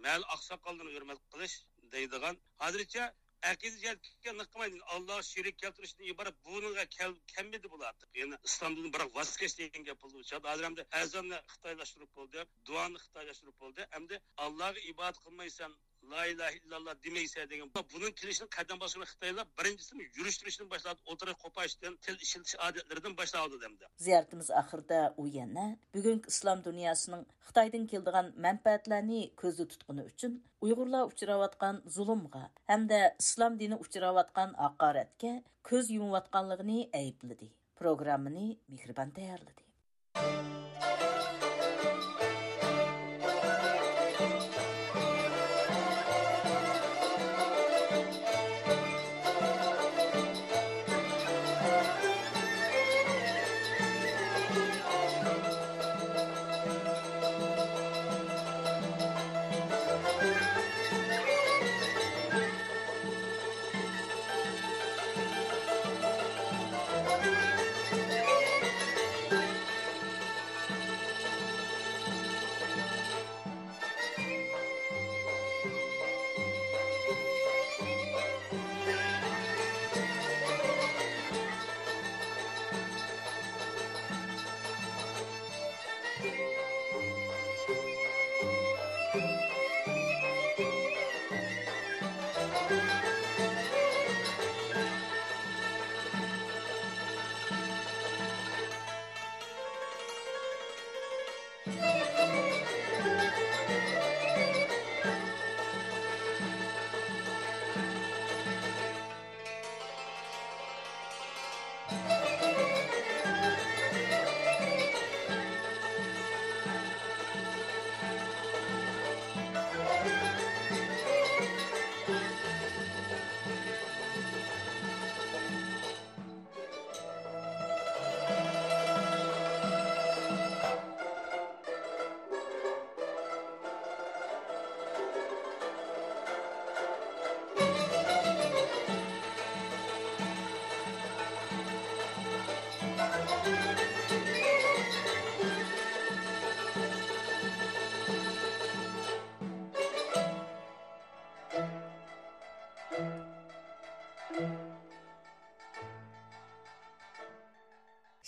مەھەللە ئاقساقاللىرىنى ھۆرمەت قىلىش دەيدىغان. ھازىرچە ئەقىدە جەھەتتىكى نىق قىلمايدۇ. ئاللاغا شېرىك كەلتۈرۈشتىن ئىبارەت بۇنىڭغا كەل-، كەلمىدى بۇلار. يەنى ئىسلامدىن بىراق ۋاز كەچ دېگەن گەپ بولدى. ھازىر ئەمدى ئەزاننى خىتايلاشتۇرۇپ بولدى، دۇئانى خىتايلاشتۇرۇپ بولدى. ئەمدى ئاللاغا ئىبادەت قىلمايسەن، لا ئىلاھە ئىللاللا دېمەيسەن دېگەن، بۇنىڭ كېلىشىنى قەدەم باسقۇچى خىتايلار بىرىنچىسى يۈرۈش-تۇرۇشتىن باشلاپ، ئوتتۇرىغا قوپاشتىن، تىل ئىشلىتىش ئادەتلىرىدىن باشلاۋاتىدۇ ئەمدى. زىيارىتىمىز ئاخىرىدا ئۇ يەنە بۈگۈنكى ئىسلام دۇنياسىنىڭ خىتايدىن كېلىدىغان مەنپەئەتلەرنى كۆزدە تۇتقىنى ئۈچۈن ئۇيغۇرلار ئۇچراۋاتقان زۇلۇمغا ھەمدە ئىسلام دىنى ئۇچراۋاتقان ھاقارەتكە كۆز يۇمۇۋاتقانلىقىنى ئەيىبلىدى. پروگراممىنى مېھرىبان تەييارلىدى.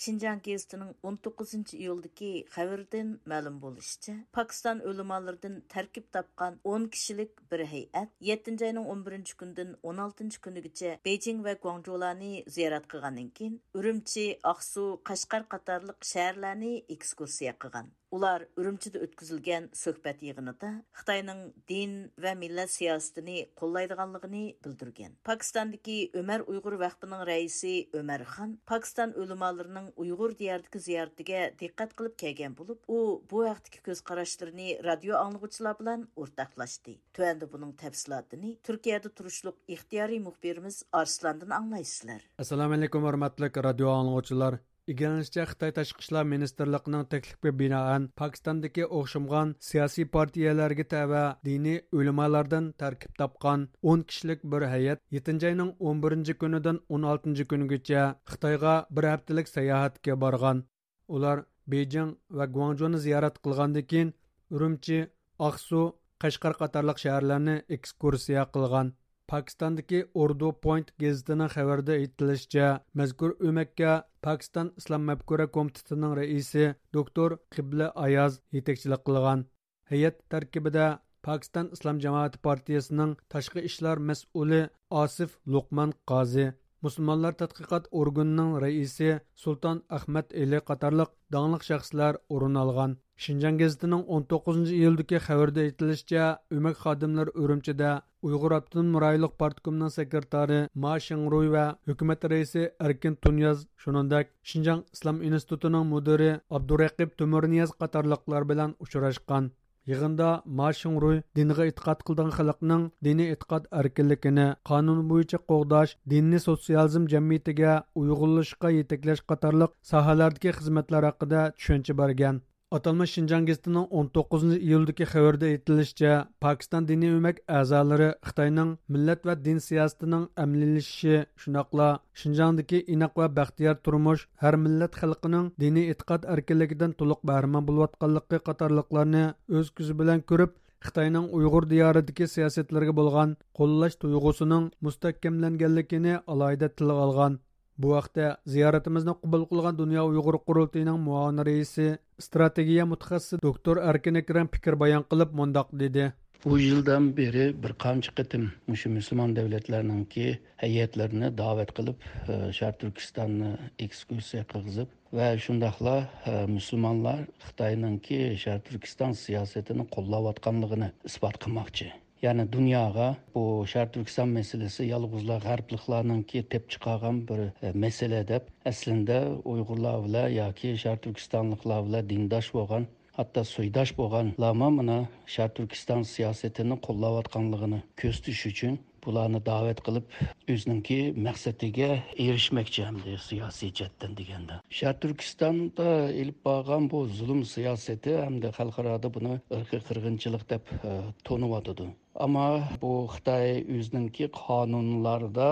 شىنجاڭ گېزىتىنىڭ ئون توققۇزىنچى ئىيۇلدىكى خەۋىرىدىن مەلۇم بولۇشىچە، پاكىستان ئۆلىمالىرىدىن تەركىب تاپقان ئون كىشىلىك بىر ھەيئەت يەتتىنچى ئاينىڭ ئون بىرىنچى كۈنىدىن ئون ئالتىنچى كۈنىگىچە بېيجىڭ ۋە گۇاڭجۇلارنى زىيارەت قىلغاندىن كېيىن، ئۈرۈمچى، ئاقسۇ، قەشقەر قاتارلىق شەھەرلەرنى ئېكسكۇرسىيە قىلغان. ئۇلار ئۈرۈمچىدە ئۆتكۈزۈلگەن سۆھبەت يىغىنىدا خىتاينىڭ دىن ۋە مىللەت سىياسىتىنى قوللايدىغانلىقىنى بىلدۈرگەن. پاكىستاندىكى ئۆمەر ئۇيغۇر ۋەقپىنىڭ رەئىسى ئۆمەر خان پاكىستان ئۆلىمالىرىنىڭ ئۇيغۇر دىيارىدىكى زىيارىتىگە دىققەت قىلىپ كەلگەن بولۇپ، ئۇ بۇ ھەقتىكى كۆز قاراشلىرىنى رادىيو ئاڭلىغۇچىلار بىلەن ئورتاقلاشتى. تۆۋەندە بۇنىڭ تەپسىلاتىنى تۈركىيەدە تۇرۇشلۇق ئىختىيارىي مۇخبىرىمىز ئارسلاندىن ئاڭلايسىلەر. ئەسسالامۇ ئەلەيكۇم، ھۆرمەتلىك رادىيو ئاڭلىغۇچىلار. ئىگىلىنىشىچە، خىتاي تاشقى ئىشلار مىنىستىرلىقىنىڭ تەكلىپىگە بىنائەن، پاكىستاندىكى ئوخشىمىغان سىياسىي پارتىيەلەرگە تەۋە دىنىي ئۆلىمالاردىن تەركىب تاپقان ئون كىشىلىك بىر ھەيئەت يەتتىنچى ئاينىڭ ئون بىرىنچى كۈنىدىن ئون ئالتىنچى كۈنىگىچە خىتايغا بىر ھەپتىلىك ساياھەتكە بارغان. ئۇلار بېيجىڭ ۋە گۇاڭجۇنى زىيارەت قىلغاندىن كېيىن، ئۈرۈمچى، ئاقسۇ، قەشقەر قاتارلىق شەھەرلەرنى ئېكسكۇرسىيە قىلغان. پاكىستاندىكى ئۇردۇ پوينت گېزىتىنىڭ خەۋىرىدە ئېيتىلىشىچە، مەزكۇر ئۆمەككە پاكىستان ئىسلام مەپكۇرە كومىتېتىنىڭ رەئىسى دوكتور قىبلە ئاياز يېتەكچىلىك قىلغان. ھەيئەت تەركىبىدە پاكىستان ئىسلام جامائىتى پارتىيىسىنىڭ تاشقى ئىشلار مەسئۇلى ئاسىف لوقمان قازى، مۇسۇلمانلار تەتقىقات ئورگىنىنىڭ رەئىسى سۇلتان ئەخمەت ئېلى قاتارلىق داڭلىق شەخسلەر ئورۇن ئالغان. شىنجاڭ گېزىتىنىڭ ئون توققۇزىنچى ئىيۇلدىكى خەۋىرىدە ئېيتىلىشىچە، ئۆمەك خادىملىرى ئۈرۈمچىدە ئۇيغۇر ئاپتونوم رايونلۇق پارتكومنىڭ سېكرېتارى ما شىڭرۇي ۋە ھۆكۈمەت رەئىسى ئەركىن تۇنىياز، شۇنىڭدەك شىنجاڭ ئىسلام ئىنستىتۇتىنىڭ مۇدىرى ئابدۇرەقىپ تۆمۈرنىياز قاتارلىقلار بىلەن ئۇچراشقان. يىغىندا ما شىڭرۇي دىنغا ئېتىقاد قىلىدىغان خەلقنىڭ دىنىي ئېتىقاد ئەركىنلىكىنى قانۇن بويىچە قوغداش، دىننى سوتسىيالىزم جەمئىيىتىگە ئۇيغۇنلىشىشقا يېتەكلەش قاتارلىق ساھەلەردىكى خىزمەتلەر ھەققىدە چۈشەنچە بەرگەن. ئاتالمىش شىنجاڭ گېزىتىنىڭ ئون توققۇزىنچى ئىيۇلدىكى خەۋىرىدە ئېيتىلىشىچە، پاكىستان دىنىي ئۆمەك ئەزالىرى خىتاينىڭ مىللەت ۋە دىن سىياسىتىنىڭ ئەمەلىيلىشىشى، شۇنداقلا شىنجاڭدىكى ئىناق ۋە بەختىيار تۇرمۇش، ھەر مىللەت خەلقىنىڭ دىنىي ئېتىقاد ئەركىنلىكىدىن تولۇق بەھرىمەن بولۇۋاتقانلىقى قاتارلىقلارنى ئۆز كۆزى بىلەن كۆرۈپ، خىتاينىڭ ئۇيغۇر دىيارىدىكى سىياسەتلىرىگە بولغان قوللاش تۇيغۇسىنىڭ مۇستەھكەملەنگەنلىكىنى ئالاھىدە تىلغا ئالغان. بۇ ھەقتە زىيارىتىمىزنى قوبۇل قىلغان دۇنيا ئۇيغۇر قۇرۇلتىيىنىڭ مۇئاۋىن رەئىسى، ئىستراتېگىيە مۇتەخەسسىسى دوكتور ئەركىن ئەكرەم پىكىر بايان قىلىپ مۇنداق دېدى. بۇ يىلدىن بېرى بىر قانچە قېتىم مۇشۇ مۇسۇلمان دۆلەتلەرنىڭكى ھەيئەتلىرىنى دەۋەت قىلىپ، ئە، شەرقىي تۈركىستاننى ئېكسكۇرسىيە قىلغۇزۇپ ۋە شۇنداقلا، ئە، مۇسۇلمانلار خىتاينىڭكى شەرقىي تۈركىستان سىياسىتىنى قوللاۋاتقانلىقىنى ئىسپات قىلماقچى. يەنى دۇنياغا بۇ شەرقىي تۈركىستان مەسىلىسى يالغۇزلا غەربلىكلارنىڭكى تېپىپ چىقارغان بىر، ئە، مەسىلە دەپ، ئەسلىندە ئۇيغۇرلار بىلەن ياكى شەرقىي تۈركىستانلىقلار بىلەن دىنداش بولغان، ھەتتا سويداش بولغانلارمۇ مانا شەرقىي تۈركىستان سىياسىتىنى قوللاۋاتقانلىقىنى كۆرسىتىش ئۈچۈن بۇلارنى دەۋەت قىلىپ، ئۆزىنىڭكى مەقسىتىگە ئېرىشمەكچى ئەمدى سىياسىي جەھەتتىن دېگەندە. شەرقىي تۈركىستاندا ئېلىپ بارغان بۇ زۇلۇم سىياسىتى ئەمدى خەلقئارادا بۇنى ئىرقىي قىرغىنچىلىق دەپ، ئە، تونۇۋاتىدۇ. ئەمما بۇ خىتاي ئۆزىنىڭكى قانۇنلاردا،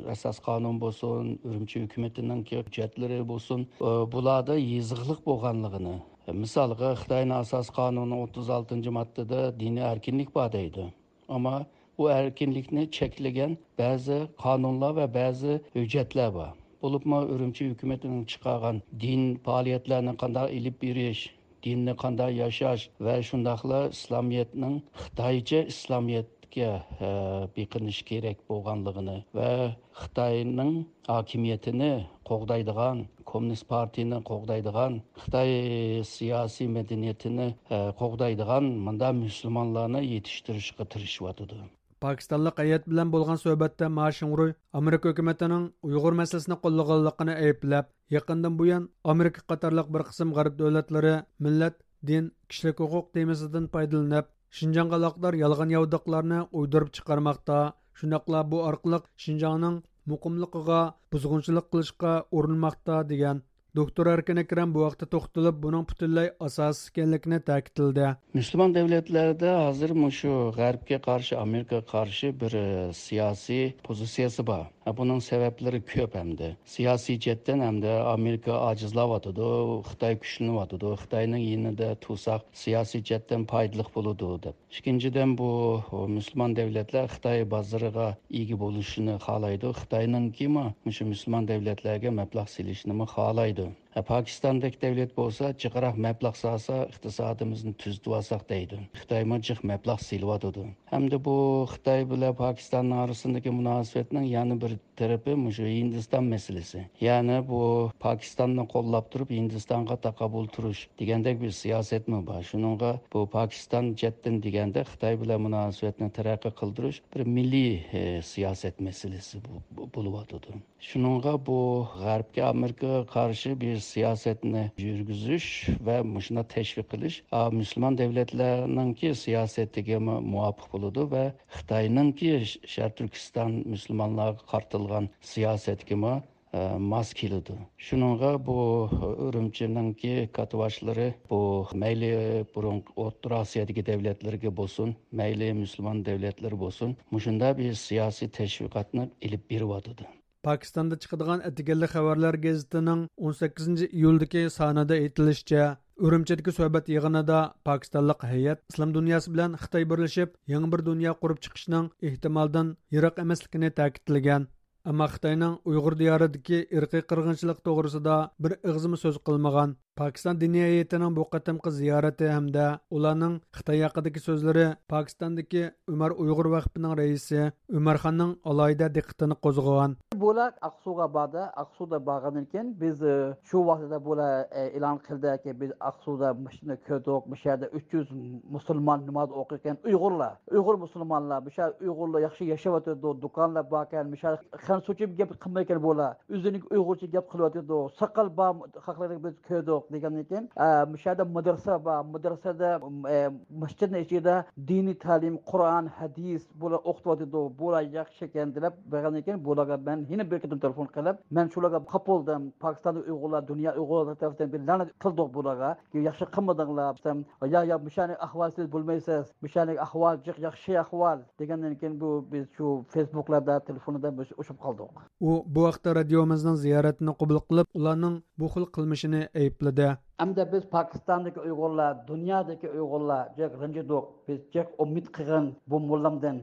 ئاساس قانۇن بولسۇن، ئۈرۈمچى ھۆكۈمىتىنىڭكى ھۆججەتلىرى بولسۇن، ئە، بۇلاردا يېزىقلىق بولغانلىقىنى، مىسالغا، خىتاينىڭ ئاساس قانۇنىنىڭ ئوتتۇز ئالتىنچى ماددىدا دىنىي ئەركىنلىك بار دەيدۇ. ئەمما بۇ ئەركىنلىكنى چەكلىگەن بەزى قانۇنلار ۋە بەزى ھۆججەتلەر بار. بولۇپمۇ ئۈرۈمچى ھۆكۈمىتىنىڭ چىقارغان دىن پائالىيەتلەرنى قانداق ئېلىپ بېرىش، دىننى قانداق ياشاش ۋە شۇنداقلا ئىسلامىيەتنىڭ خىتايچە ئىسلامىيەتكە، ئە، بېقىنىش كېرەك بولغانلىقىنى ۋە خىتاينىڭ ھاكىمىيىتىنى قوغدايدىغان، كوممۇنىست پارتىيىنى قوغدايدىغان، خىتاي سىياسىي مەدەنىيىتىنى، ئە، قوغدايدىغان مۇنداق مۇسۇلمانلارنى يېتىشتۈرۈشكە تىرىشىۋاتىدۇ. پاكىستانلىق ھەيئەت بىلەن بولغان سۆھبەتتە ما شىڭرۇي ئامېرىكا ھۆكۈمىتىنىڭ ئۇيغۇر مەسىلىسىنى قوللىغانلىقىنى ئەيىبلەپ، يېقىندىن بۇيان ئامېرىكا قاتارلىق بىر قىسىم غەرب دۆلەتلىرى مىللەت، دىن، كىشىلىك ھوقۇق تېمىسىدىن پايدىلىنىپ، شىنجاڭغا ئالاقىدار يالغان ياۋىداقلارنى ئويدۇرۇپ چىقارماقتا، شۇنداقلا بۇ ئارقىلىق شىنجاڭنىڭ مۇقىملىقىغا بۇزغۇنچىلىق قىلىشقا ئۇرۇنماقتا، دېگەن. دوكتور ئەركىن ئەكرەم بۇ ھەقتە توختىلىپ، بۇنىڭ پۈتۈنلەي ئاساسسىز ئىكەنلىكىنى تەكىتلىدى. مۇسۇلمان دۆلەتلەردە ھازىر مۇشۇ غەربكە قارشى، ئامېرىكىغا قارشى بىر، ئە، سىياسىي پوزىتسىيەسى بار. بۇنىڭ سەۋەبلىرى كۆپ ھەمدە. سىياسىي جەھەتتىن ھەمدە ئامېرىكا ئاجىزلاۋاتىدۇ، خىتاي كۈچلىنىۋاتىدۇ. خىتاينىڭ يېنىدا تۇرساق سىياسىي جەھەتتىن پايدىلىق بولىدۇ دەپ. ئىككىنچىدىن، بۇ مۇسۇلمان دۆلەتلەر خىتاي بازىرىغا ئىگە بولۇشىنى خالايدۇ. خىتاينىڭكىمۇ مۇشۇ مۇسۇلمان دۆلەتلەرگە مەبلەغ سېلىشنىمۇ خالايدۇ. پاكىستاندەك دەۋلەت بولسا، جىقراق مەبلەغ سالسا، ئىقتىسادىمىزنى تۈزىتىۋالساق دەيدۇ. خىتايمۇ جىق مەبلەغ سېلىۋاتىدۇ. ھەمدە بۇ خىتاي بىلەن پاكىستاننىڭ ئارىسىندىكى مۇناسىۋەتنىڭ يەنە بىر تەرىپى مۇشۇ ھىندىستان مەسىلىسى. يەنى بۇ پاكىستاننى قوللاپ تۇرۇپ، ھىندىستانغا تاقابىل تۇرۇش دېگەندەك بىر سىياسەتمۇ بار. شۇنىڭغا بۇ پاكىستان جەھەتتىن دېگەندە خىتاي بىلەن مۇناسىۋەتنى تەرەققىي قىلدۇرۇش بىر مىللىي، ئە، سىياسەت مەسىلىسى بو-، بو-، بولۇۋاتىدۇ. شۇنىڭغا بۇ غەربكە، ئامېرىكىغا قارشى بىر سىياسەتنى يۈرگۈزۈش ۋە مۇشۇنداق تەشۋىق قىلىش، ئا، مۇسۇلمان دۆلەتلەرنىڭكى سىياسىتىگە مۇ-، مۇۋاپىق بولىدۇ ۋە خىتاينىڭكى ش-، شەرقىي تۈركىستان مۇسۇلمانلارغا قارىتىلغان سىياسەتكىمۇ، ئە، ماس كېلىدۇ. شۇنىڭغا بۇ ئۈرۈمچىنىڭكى كاتتىباشلىرى بۇ مەيلى بۇرۇنقى ئوتتۇرا ئاسىيادىكى دۆلەتلەرگە بولسۇن، مەيلى مۇسۇلمان دۆلەتلىرى بولسۇن، مۇشۇنداق بىر سىياسىي تەشۋىقاتنى ئېلىپ بېرىۋاتىدۇ. پاكىستاندا چىقىدىغان ئەتىگەنلىك خەۋەرلەر گېزىتىنىڭ ئون سەككىزىنچى ئىيۇلدىكى سانىدا ئېيتىلىشىچە، ئۈرۈمچىدىكى سۆھبەت يىغىنىدا پاكىستانلىق ھەيئەت ئىسلام دۇنياسى بىلەن خىتاي بىرلىشىپ، يېڭى بىر دۇنيا قۇرۇپ چىقىشنىڭ ئېھتىمالدىن يىراق ئەمەسلىكىنى تەكىتلىگەن. ئەمما خىتاينىڭ ئۇيغۇر دىيارىدىكى ئىرقىي قىرغىنچىلىق توغرىسىدا بىر ئېغىزمۇ سۆز قىلمىغان. پاكىستان دىنىي ھەيئىتىنىڭ بۇ قېتىمقى زىيارىتى ھەمدە ئۇلارنىڭ خىتاي ھەققىدىكى سۆزلىرى پاكىستاندىكى ئۆمەر ئۇيغۇر ۋەقپىنىڭ رەئىسى ئۆمەر خاننىڭ ئالاھىدە دىققىتىنى قوزغىغان. بۇلار ئاقسۇغا باردى. ئاقسۇدا بارغاندىن كېيىن بىز، ئى، شۇ ۋاسىتىدە بۇلار، ئى، ئېلان قىلدىكى، بىز ئاقسۇدا مۇشۇنى كۆردۇق، مۇشۇ يەردە ئۈچ يۈز مۇسۇلمان ناماز ئوقۇيدىكەن، ئۇيغۇرلار، ئۇيغۇر مۇسۇلمانلار، مۇشۇ يەردە ئۇيغۇرلار ياخشى ياشاۋاتىدۇ، دۇكانلار باركەن، مۇشۇ يەردە خەنزۇچە گەپ قىلمايدىكەن بۇلار. ئۆزىنىڭ ئۇيغۇرچە گەپ قىلىۋاتىدۇ. ساقال بار خەقلەرنى بىز كۆردۇق دېگەندىن كېيىن، ئە، مۇشۇ يەردە مەدرىسە بار. مەدرىسەدە، ئە، مەسچىتنىڭ ئىچىدە دىنىي تەلىم، قۇرئان، ھەدىس بۇلار ئوقۇتۇۋاتىدۇ. بۇلار ياخشىكەن دەپ بەرگەندىن كېيىن بۇلارغا مەن يەنە بىر قېتىم تېلېفون قىلىپ، مەن شۇلارغا قاپ بولدۇم. پاكىستاندا ئۇيغۇرلار، دۇنيا ئۇيغۇرلىرى تەرىپىدىن بىر لەنەت قىلدۇق بۇلارغا. ياخشى قىلمىدىڭلار دېسەم، يا، يا، مۇشۇنى ئەھۋال سىز بىلمەيسىز. مۇشۇنى ئەھۋال جىق ياخشى ئەھۋال دېگەندىن كېيىن بۇ بىز شۇ فېيسبۇكلاردا، تېلېفوندا بىز ئۇچۇپ قالدۇق. ئۇ بۇ ھەقتە رادىيومىزنىڭ زىيارىتىنى قوبۇل قىلىپ، ئۇلارنىڭ بۇ خىل قىلمىشىنى ئەيىبلىدى. ئەمدى بىز پاكىستاندىكى ئۇيغۇرلار، دۇنيادىكى ئۇيغۇرلار جىق رەنجىدۇق. بىز جىق ئۈمىد قىلغان بۇ موللامدىن.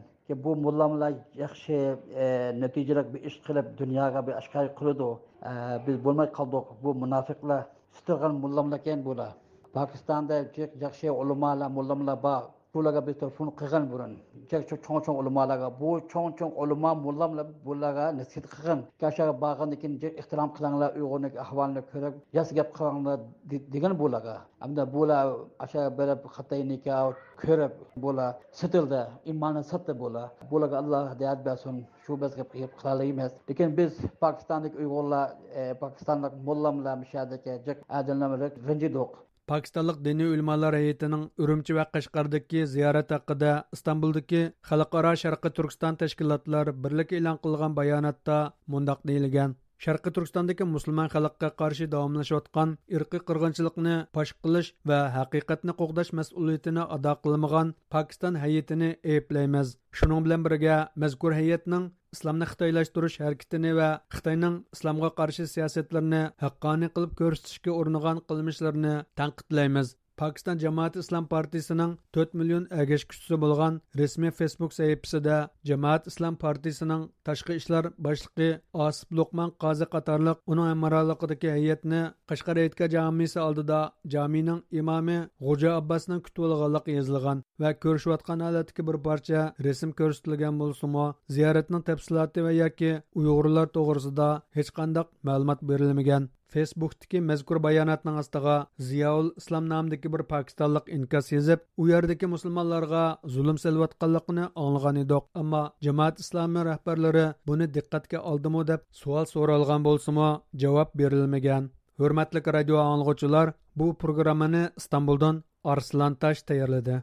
بۇ موللاملار ياخشى، ئە، نەتىجىلىك بىر ئىش قىلىپ، دۇنياغا بىر ئاشكارا قىلىدۇ. ئە، بىز بولماي قالدۇق. بۇ مۇناپىقلار، سېتىلغان موللاملاركەن بۇلار. پاكىستاندا جىق ياخشى ئۆلىمالار، موللاملار بار. بۇلارغا بىز تېلېفون قىلغان بۇرۇن. جىق شۇ چوڭ-چوڭ ئۆلىمالارغا. بۇ چوڭ-چوڭ ئۆلىما موللاملار بۇلارغا نەسىھەت قىلغان. ئاشۇ يەرگە بارغاندىن كېيىن جىق ئېھتىرام قىلىڭلار، ئۇيغۇرنىڭ ئەھۋالىنى كۆرۈپ، ياخشى گەپ قىلىڭلار دې-، دېگەن بۇلارغا. ئەمدى بۇلار ئاشۇ بېرىپ خىتاي نىكاھى كۆرۈپ، بۇلار سېتىلدى، ئىمانىنى ساتتى بۇلار. بۇلارغا ئاللا ھىدايەت بەرسۇن، شۇ بىز گەپ، گەپ قىلالايمىز. لېكىن بىز پاكىستاندىكى ئۇيغۇرلار، ئە، پاكىستانلىق موللاملار، مۇشۇ يەردىكى جىق ئادەملەر بىلەن رەنجىدۇق. پاكىستانلىق دىنىي ئۆلىمالار ھەيئىتىنىڭ ئۈرۈمچى ۋە قەشقەردىكى زىيارەت ھەققىدە ئىستانبۇلدىكى خەلقئارا شەرقىي تۈركىستان تەشكىلاتلار بىرلىكى ئېلان قىلغان باياناتتا مۇنداق دېيىلگەن: شەرقىي تۈركىستاندىكى مۇسۇلمان خەلققە قارشى داۋاملىشىۋاتقان ئىرقىي قىرغىنچىلىقنى پاش قىلىش ۋە ھەقىقەتنى قوغداش مەسئۇلىيىتىنى ئادا قىلمىغان پاكىستان ھەيئىتىنى ئەيىبلەيمىز. شۇنىڭ بىلەن بىرگە، مەزكۇر ھەيئەتنىڭ ئىسلامنى خىتايلاشتۇرۇش ھەرىكىتىنى ۋە خىتاينىڭ ئىسلامغا قارشى سىياسەتلىرىنى ھەققانىي قىلىپ كۆرسىتىشكە ئۇرۇنغان قىلمىشلىرىنى تەنقىدلەيمىز. پاكىستان جامائەت ئىسلام پارتىيىسىنىڭ تۆت مىليون ئەگەشكۈچىسى بولغان رەسمىي فېيسبۇك سەھىپىسىدە جامائەت ئىسلام پارتىيىسىنىڭ تاشقى ئىشلار باشلىقى ئاسىپ لوقمان قازى قاتارلىق ئۇنىڭ ھەمراھلىقىدىكى ھەيئەتنى قەشقەر ھېيتگاھ جامىسى ئالدىدا جامىنىڭ ئىمامى غوجا ئابباسنىڭ كۈتۈۋالغانلىقى يېزىلغان ۋە كۆرۈشۈۋاتقان ھالەتتىكى بىر پارچە رەسىم كۆرسىتىلگەن بولسىمۇ، زىيارەتنىڭ تەپسىلاتى ۋە ياكى ئۇيغۇرلار توغرىسىدا ھېچقانداق مەلۇمات بېرىلمىگەن. فېيسبۇكتىكى مەزكۇر باياناتنىڭ ئاستىغا زىياۋۇل ئىسلام نامىدىكى بىر پاكىستانلىق ئىنكاس يېزىپ، ئۇ يەردىكى مۇسۇلمانلارغا زۇلۇم سېلىۋاتقانلىقىنى ئاڭلىغان ئىدۇق، ئەمما جامائەت ئىسلامى رەھبەرلىرى بۇنى دىققەتكە ئالدىمۇ دەپ سوئال سورالغان بولسىمۇ، جاۋاب بېرىلمىگەن. ھۆرمەتلىك رادىيو ئاڭلىغۇچىلار، بۇ پروگراممىنى ئىستانبۇلدىن ئارسلان تاش تەييارلىدى.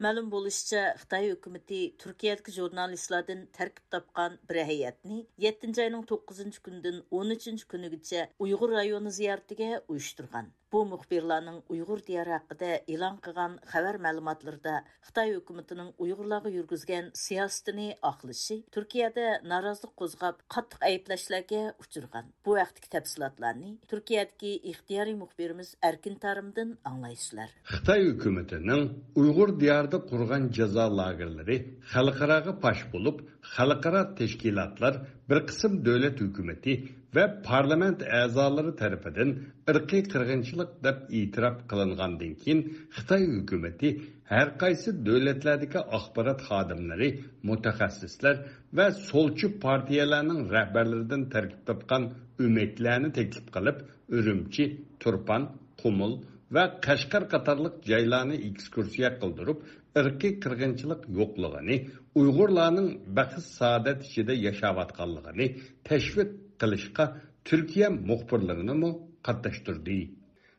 مەلۇم بولۇشىچە، خىتاي ھۆكۈمىتى تۈركىيەدىكى ژۇرنالىستلاردىن تەركىب تاپقان بىر ھەيئەتنى يەتتىنچى ئاينىڭ توققۇزىنچى كۈنىدىن ئون ئۈچىنچى كۈنىگىچە ئۇيغۇر رايونى زىيارىتىگە ئۇيۇشتۇرغان. بۇ مۇخبىرلارنىڭ ئۇيغۇر دىيارى ھەققىدە ئېلان قىلغان خەۋەر مەلۇماتلىرىدا خىتاي ھۆكۈمىتىنىڭ ئۇيغۇرلارغا يۈرگۈزگەن سىياسىتىنى ئاقلىشى تۈركىيەدە نارازىلىق قوزغاپ، قاتتىق ئەيىبلەشلەرگە ئۇچرىغان. بۇ ھەقتىكى تەپسىلاتلارنى تۈركىيەدىكى ئىختىيارىي مۇخبىرىمىز ئەركىن تارىمدىن ئاڭلايسىلەر. خىتاي ھۆكۈمىتىنىڭ ئۇيغۇر دىيارى قۇرغان جازا لاگېرلىرى خەلقئاراغا پاش بولۇپ، خەلقئارا تەشكىلاتلار، بىر قىسىم دۆلەت ھۆكۈمىتى ۋە پارلامېنت ئەزالىرى تەرىپىدىن ئىرقىي قىرغىنچىلىق دەپ ئېتىراپ قىلىنغاندىن كېيىن، خىتاي ھۆكۈمىتى ھەر قايسى دۆلەتلەردىكى ئاخبارات خادىملىرى، مۇتەخەسسىسلەر ۋە سولچى پارتىيەلەرنىڭ رەھبەرلىرىدىن تەركىب تاپقان ئۆمەكلەرنى تەكلىپ قىلىپ، ئۈرۈمچى، تۇرپان، قۇمۇل ۋە قەشقەر قاتارلىق جايلارنى ئېكسكۇرسىيە قىلدۇرۇپ، ئىرقىي قىرغىنچىلىق يوقلۇقىنى، ئۇيغۇرلارنىڭ بەخت-سائادەت ئىچىدە ياشاۋاتقانلىقىنى تەشۋىق قىلىشقا تۈركىيە مۇخبىرلىرىنىمۇ قاتناشتۇردى.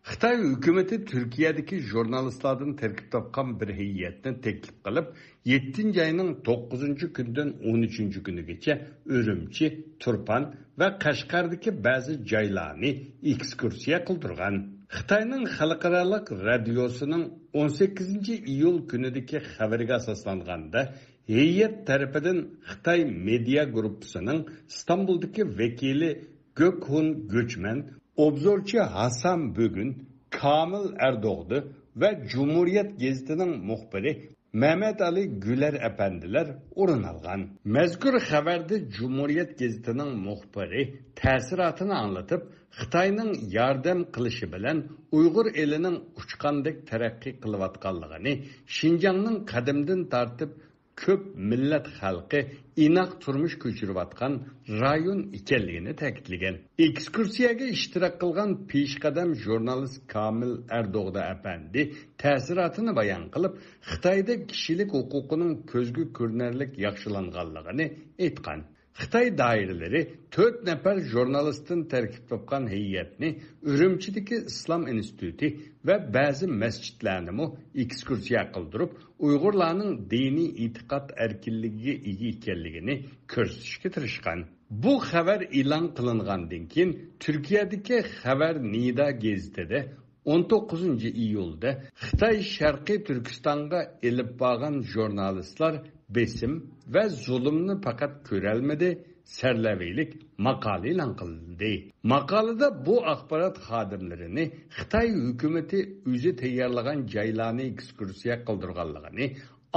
خىتاي ھۆكۈمىتى تۈركىيەدىكى ژۇرنالىستلاردىن تەركىب تاپقان بىر ھەيئەتنى تەكلىپ قىلىپ، يەتتىنچى ئاينىڭ توققۇزىنچى كۈنىدىن ئون ئۈچىنچى كۈنىگىچە ئۈرۈمچى، تۇرپان ۋە قەشقەردىكى بەزى جايلارنى ئېكسكۇرسىيە قىلدۇرغان. خىتاينىڭ خەلقئارالىق رادىيوسىنىڭ ئون سەككىزىنچى ئىيۇل كۈنىدىكى خەۋىرىگە ئاساسلانغاندا، ھەيئەت تەرىپىدىن خىتاي مېدىيا گۇرۇپپىسىنىڭ ئىستانبۇلدىكى ۋەكىلى گۆكھۇن گۆچمەن، ئوبزورچى ھاسان بۈگۈن، كامىل ئەردوغدى ۋە جۇمھۇرىيەت گېزىتىنىڭ مۇخبىرى مەمەتئالى گۈلەر ئەپەندىلەر ئورۇن ئالغان. مەزكۇر خەۋەردە جۇمھۇرىيەت گېزىتىنىڭ مۇخبىرى تەسىراتىنى ئاڭلىتىپ، خىتاينىڭ ياردەم قىلىشى بىلەن ئۇيغۇر ئېلىنىڭ ئۇچقاندەك تەرەققىي قىلىۋاتقانلىقىنى، شىنجاڭنىڭ قەدىمدىن تارتىپ كۆپ مىللەت خەلقى ئىناق تۇرمۇش كۆچۈرۈۋاتقان رايون ئىكەنلىكىنى تەكىتلىگەن. ئېكسكۇرسىيەگە ئىشتىراك قىلغان پېشقەدەم ژۇرنالىست كامىل ئەردوغدا ئەپەندى تەسىراتىنى بايان قىلىپ، خىتايدا كىشىلىك ھوقۇقىنىڭ كۆزگە كۆرۈنەرلىك ياخشىلانغانلىقىنى ئېيتقان. خىتاي دائىرىلىرى تۆت نەپەر ژۇرنالىستتىن تەركىب تاپقان ھەيئەتنى ئۈرۈمچىدىكى ئىسلام ئىنستىتۇتى ۋە بەزى مەسچىتلەرنىمۇ ئېكسكۇرسىيە قىلدۇرۇپ، ئۇيغۇرلارنىڭ دىنىي ئېتىقاد ئەركىنلىكىگە ئىگە ئىكەنلىكىنى كۆرسىتىشكە تىرىشقان. بۇ خەۋەر ئېلان قىلىنغاندىن كېيىن، تۈركىيەدىكى خەۋەر نىدا گېزىتىدە ئون توققۇزىنچى ئىيۇلدا خىتاي شەرقىي تۈركىستانغا ئېلىپ بارغان ژۇرنالىستلار بېسىم ۋە زۇلۇمنى پەقەت كۆرەلمىدى، سەرلەۋھىلىك ماقالە ئېلان قىلدى. ماقالىدە بۇ ئاخبارات خادىملىرىنى خىتاي ھۆكۈمىتى ئۆزى تەييارلىغان جايلارنى ئېكسكۇرسىيە قىلدۇرغانلىقىنى،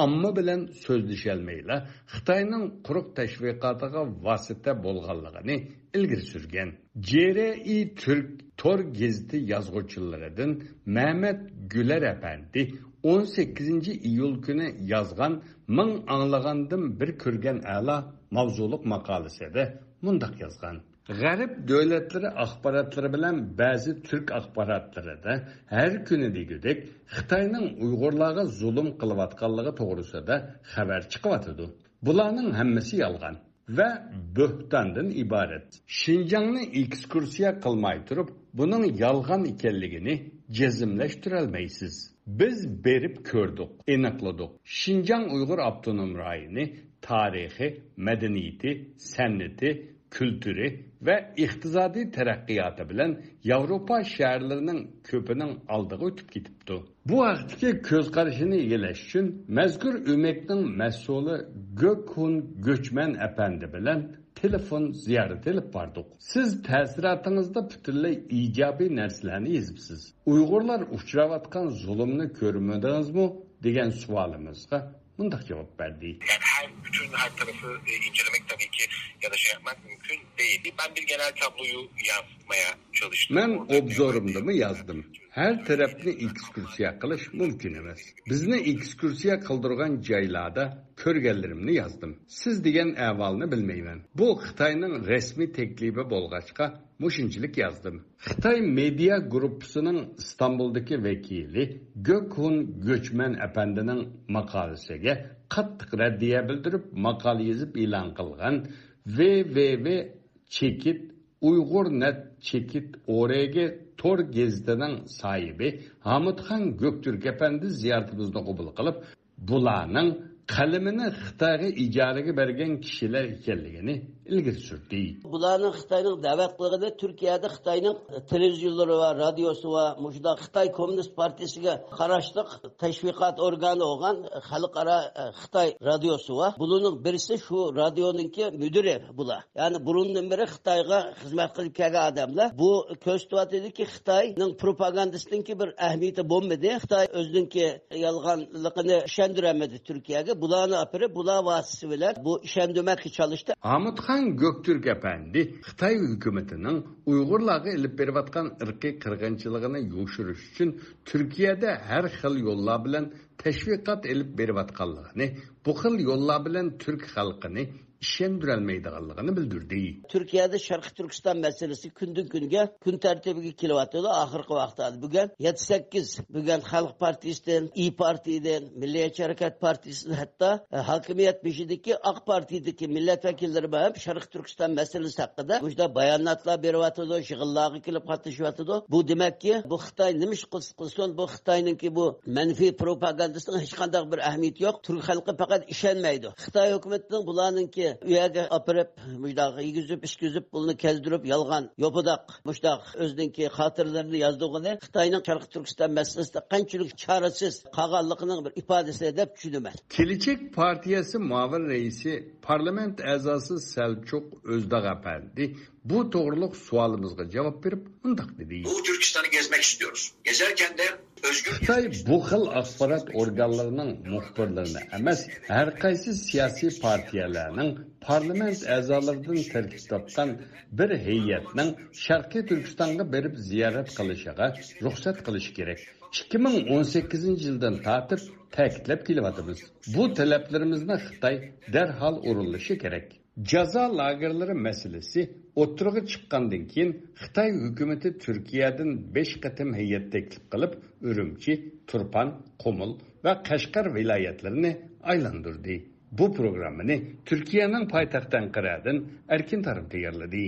ئامما بىلەن سۆزلىشەلمەيلا، خىتاينىڭ قۇرۇق تەشۋىقاتىغا ۋاسىتە بولغانلىقىنى ئىلگىرى سۈرگەن. جې رې ئى تۈرك تور گېزىتى يازغۇچىلىرىدىن مەمەت گۈلەر ئەپەندى ئون سەككىزىنچى ئىيۇل كۈنى يازغان مىڭ ئاڭلىغاندىن بىر كۆرگەن ئەلا ماۋزۇلۇق ماقالىسىدە مۇنداق يازغان: غەرب دۆلەتلىرى ئاخباراتلىرى بىلەن بەزى تۈرك ئاخباراتلىرىدا ھەر كۈنى دېگۈدەك خىتاينىڭ ئۇيغۇرلارغا زۇلۇم قىلىۋاتقانلىقى توغرىسىدا خەۋەر چىقىۋاتىدۇ. بۇلارنىڭ ھەممىسى يالغان ۋە بۆھتاندىن ئىبارەت. شىنجاڭنى ئېكسكۇرسىيە قىلماي تۇرۇپ، بۇنىڭ يالغان ئىكەنلىكىنى جەزملەشتۈرەلمەيسىز. بىز بېرىپ كۆردۇق، ئېنىقلىدۇق. شىنجاڭ ئۇيغۇر ئاپتونوم رايونى تارىخى، مەدەنىيىتى، سەنئىتى، كۈلتۈرى ۋە ئىقتىسادىي تەرەققىياتى بىلەن ياۋروپا شەھەرلىرىنىڭ كۆپىنىڭ ئالدىغا ئۆتۈپ كېتىپتۇ. بۇ ھەقتىكى كۆز قارىشىنى ئىگىلەش ئۈچۈن مەزكۇر ئۆمەكنىڭ مەسئۇلى گۆكھۇن گۆچمەن ئەپەندى بىلەن تېلېفون زىيارىتى ئېلىپ باردۇق. سىز تەسىراتىڭىزدا پۈتۈنلەي ئىجابىي نەرسىلەرنى يېزىپسىز. ئۇيغۇرلار ئۇچراۋاتقان زۇلۇمنى كۆرمىدىڭىزمۇ؟ دېگەن سوئالىمىزغا مۇنداق جاۋاب بەردى. Yani her, bütün her tarafı e, incelemek tabii ki ya da şey yapmak mümkün değil. Ben bir genel tabloyu yansıtmaya çalıştım. مەن ئوبزورۇمدىمۇ يازدىم. ھەر تەرەپنى ئېكسكۇرسىيە قىلىش مۇمكىن ئەمەس. بىزنى ئېكسكۇرسىيە قىلدۇرغان جايلاردا كۆرگەنلىرىمنى يازدىم. سىز دېگەن ئەھۋالنى بىلمەيمەن. بۇ خىتاينىڭ رەسمىي تەكلىپى بولغاچقا، مۇشۇنچىلىك يازدىم. خىتاي مېدىيا گۇرۇپپىسىنىڭ ئىستانبۇلدىكى ۋەكىلى گۆكھۇن گۆچمەن ئەپەندىنىڭ ماقالىسىگە قاتتىق رەددىيە بىلدۈرۈپ، ماقالە يېزىپ ئېلان قىلغان ۋې ۋې ۋې چېكىت ئۇيغۇر نەت چېكىت ئورېگى تور گېزىتىنىڭ ساھىبى ھامۇتخان گۆكتۈرك ئەپەندى زىيارىتىمىزنى قوبۇل قىلىپ، بۇلارنىڭ قەلىمىنى خىتايغا ئىجارىگە بەرگەن كىشىلەر ئىكەنلىكىنى ئىلگىرى سۈردى. بۇلارنىڭ خىتاينىڭ دەۋەت قىلغىنى تۈركىيەدە خىتاينىڭ تېلېۋىزىيونلىرى ۋە رادىيوسى ۋە مۇشۇنداق خىتاي كوممۇنىست پارتىيىسىگە قاراشلىق تەشۋىقات ئورگانى بولغان خەلقئارا، ئە، خىتاي رادىيوسى بار. بۇلارنىڭ بىرسى شۇ رادىيونىڭكى مۇدىرى بۇلار. يەنى بۇرۇندىن بېرى خىتايغا خىزمەت قىلىپ كەلگەن ئادەملەر. بۇ كۆرسىتىۋاتىدۇكى، خىتاينىڭ پروپاگاندىسىنىڭكى بىر ئەھمىيىتى بولمىدى. خىتاي ئۆزىنىڭكى يالغانلىقىنى ئىشەندۈرەلمىدى تۈركىيەگە. بۇلارنى ئاپىرىپ، بۇلار ۋاسىتىسى بىلەن بۇ ئىشەندۈرمەككە چالىشتى. ھامۇتخان گۆكتۈرك ئەپەندى خىتاي ھۆكۈمىتىنىڭ ئۇيغۇرلارغا ئېلىپ بېرىۋاتقان ئىرقىي قىرغىنچىلىقىنى يوشۇرۇش ئۈچۈن تۈركىيەدە ھەر خىل يوللار بىلەن تەشۋىقات ئېلىپ بېرىۋاتقانلىقىنى، بۇ خىل يوللار بىلەن تۈرك خەلقىنى ئىشەندۈرەلمەيدىغانلىقىنى بىلدۈردى. تۈركىيەدە شەرقىي تۈركىستان مەسىلىسى كۈندىن كۈنگە كۈن تەرتىپىگە كېلىۋاتىدۇ. ئاخىرقى ۋاقىتلاردا بۈگۈن يەتتە سەككىز، بۈگۈن خەلق پارتىيىسىدىن، ئىيى پارتىيىدىن، مىللىيەتچى ھەرىكەت پارتىيىسىدىن، ھەتتا، ئە، ھاكىمىيەت بېشىدىكى ئاق پارتىيىدىكى مىللەت ۋەكىللىرى بىلەن شەرقىي تۈركىستان مەسىلىسى ھەققىدە مۇشۇنداق باياناتلار بېرىۋاتىدۇ، يىغىنلارغا كېلىپ قاتنىشىۋاتىدۇ. بۇ دېمەككى، بۇ خىتاي نېمە ئىش قىلسا قىلسۇن، بۇ خىتاينىڭكى بۇ مەنپىي پروپاگاندىسىنىڭ ھېچقانداق بىر ئەھمىيىتى يوق. تۈرك خەلقى پەقەت ئىشەنمەيدۇ. خىتاي ھۆكۈمىتىنىڭ بۇلارنىڭكى ئۇ يەرگە ئاپىرىپ، مۇشۇنداق يېگۈزۈپ، ئىچكۈزۈپ، بۇلارنى كەزدۈرۈپ، يالغان، يوپىداق، مۇشۇنداق ئۆزىنىڭكى خاتىرىلىرىنى يازدۇرغىنى خىتاينىڭ شەرقىي تۈركىستان مەسىلىسىدە قانچىلىك چارىسىز قالغانلىقىنىڭ بىر ئىپادىسى دەپ چۈشىنىمەن. كېلىچەك پارتىيەسى مۇئاۋىن رەئىسى، پارلامېنت ئەزاسى سەلچۇق ئۆزداغ ئەپەندى بۇ توغرۇلۇق سوئالىمىزغا جاۋاب بېرىپ مۇنداق دېدى. Doğu Türkistan'ı gezmek istiyoruz. Gezerken de özgür خىتاي بۇ خىل ئاخبارات ئورگانلىرىنىڭ مۇخبىرلىرىنى ئەمەس، ھەر قايسى سىياسىي پارتىيەلەرنىڭ پارلامېنت ئەزالىرىدىن تەركىب تاپقان بىر ھەيئەتنىڭ شەرقىي تۈركىستانغا بېرىپ زىيارەت قىلىشىغا رۇخسەت قىلىش كېرەك. ئىككى مىڭ ئون سەككىزىنچى يىلدىن تارتىپ تەكىتلەپ كېلىۋاتىمىز. بۇ تەلەپلىرىمىزنى خىتاي دەرھال ئورۇنلىشى كېرەك. جازا لاگېرلىرى مەسىلىسى ئوتتۇرىغا چىققاندىن كېيىن، خىتاي ھۆكۈمىتى تۈركىيەدىن بەش قېتىم ھەيئەت تەكلىپ قىلىپ، ئۈرۈمچى، تۇرپان، قۇمۇل ۋە قەشقەر ۋىلايەتلىرىنى ئايلاندۇردى. بۇ پروگراممىنى تۈركىيەنىڭ پايتەختى ئەنقەرەدىن ئەركىن تارىم تەييارلىدى.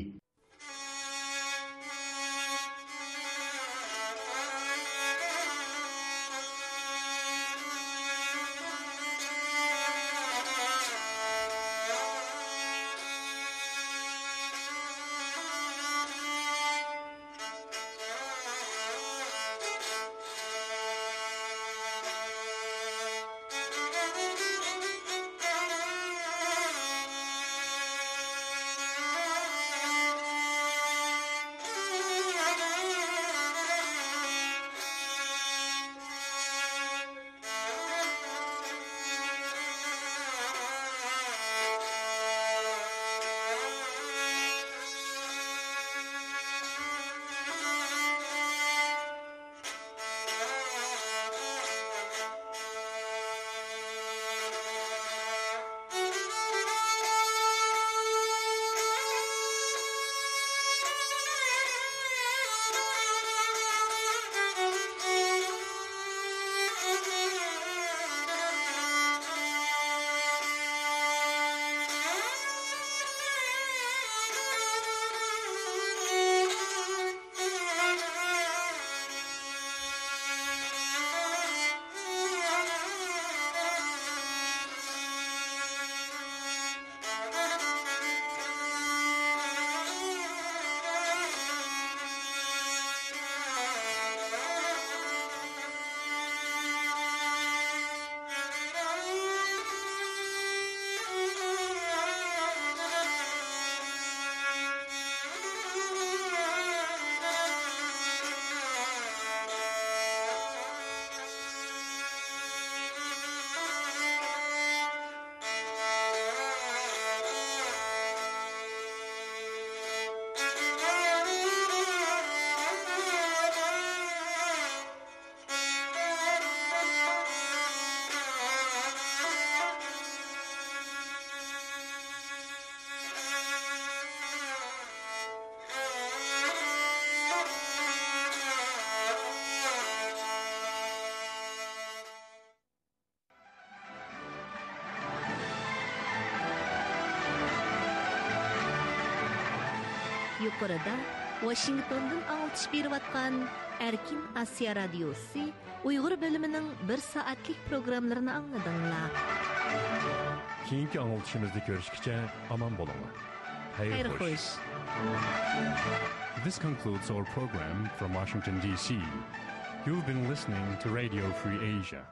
يۇقىرىدا ۋاشىنگتوندىن ئاڭلىتىش بېرىۋاتقان ئەركىن ئاسىيا رادىيوسى ئۇيغۇر بۆلۈمىنىڭ بىر سائەتلىك پروگراممىلىرىنى ئاڭلىدىڭلار. كېيىنكى ئاڭلىتىشىمىزدا كۆرۈشكىچە ئامان بولۇڭلار. خەير خوش. This concludes our program from Washington, D C. You've been listening to Radio Free Asia.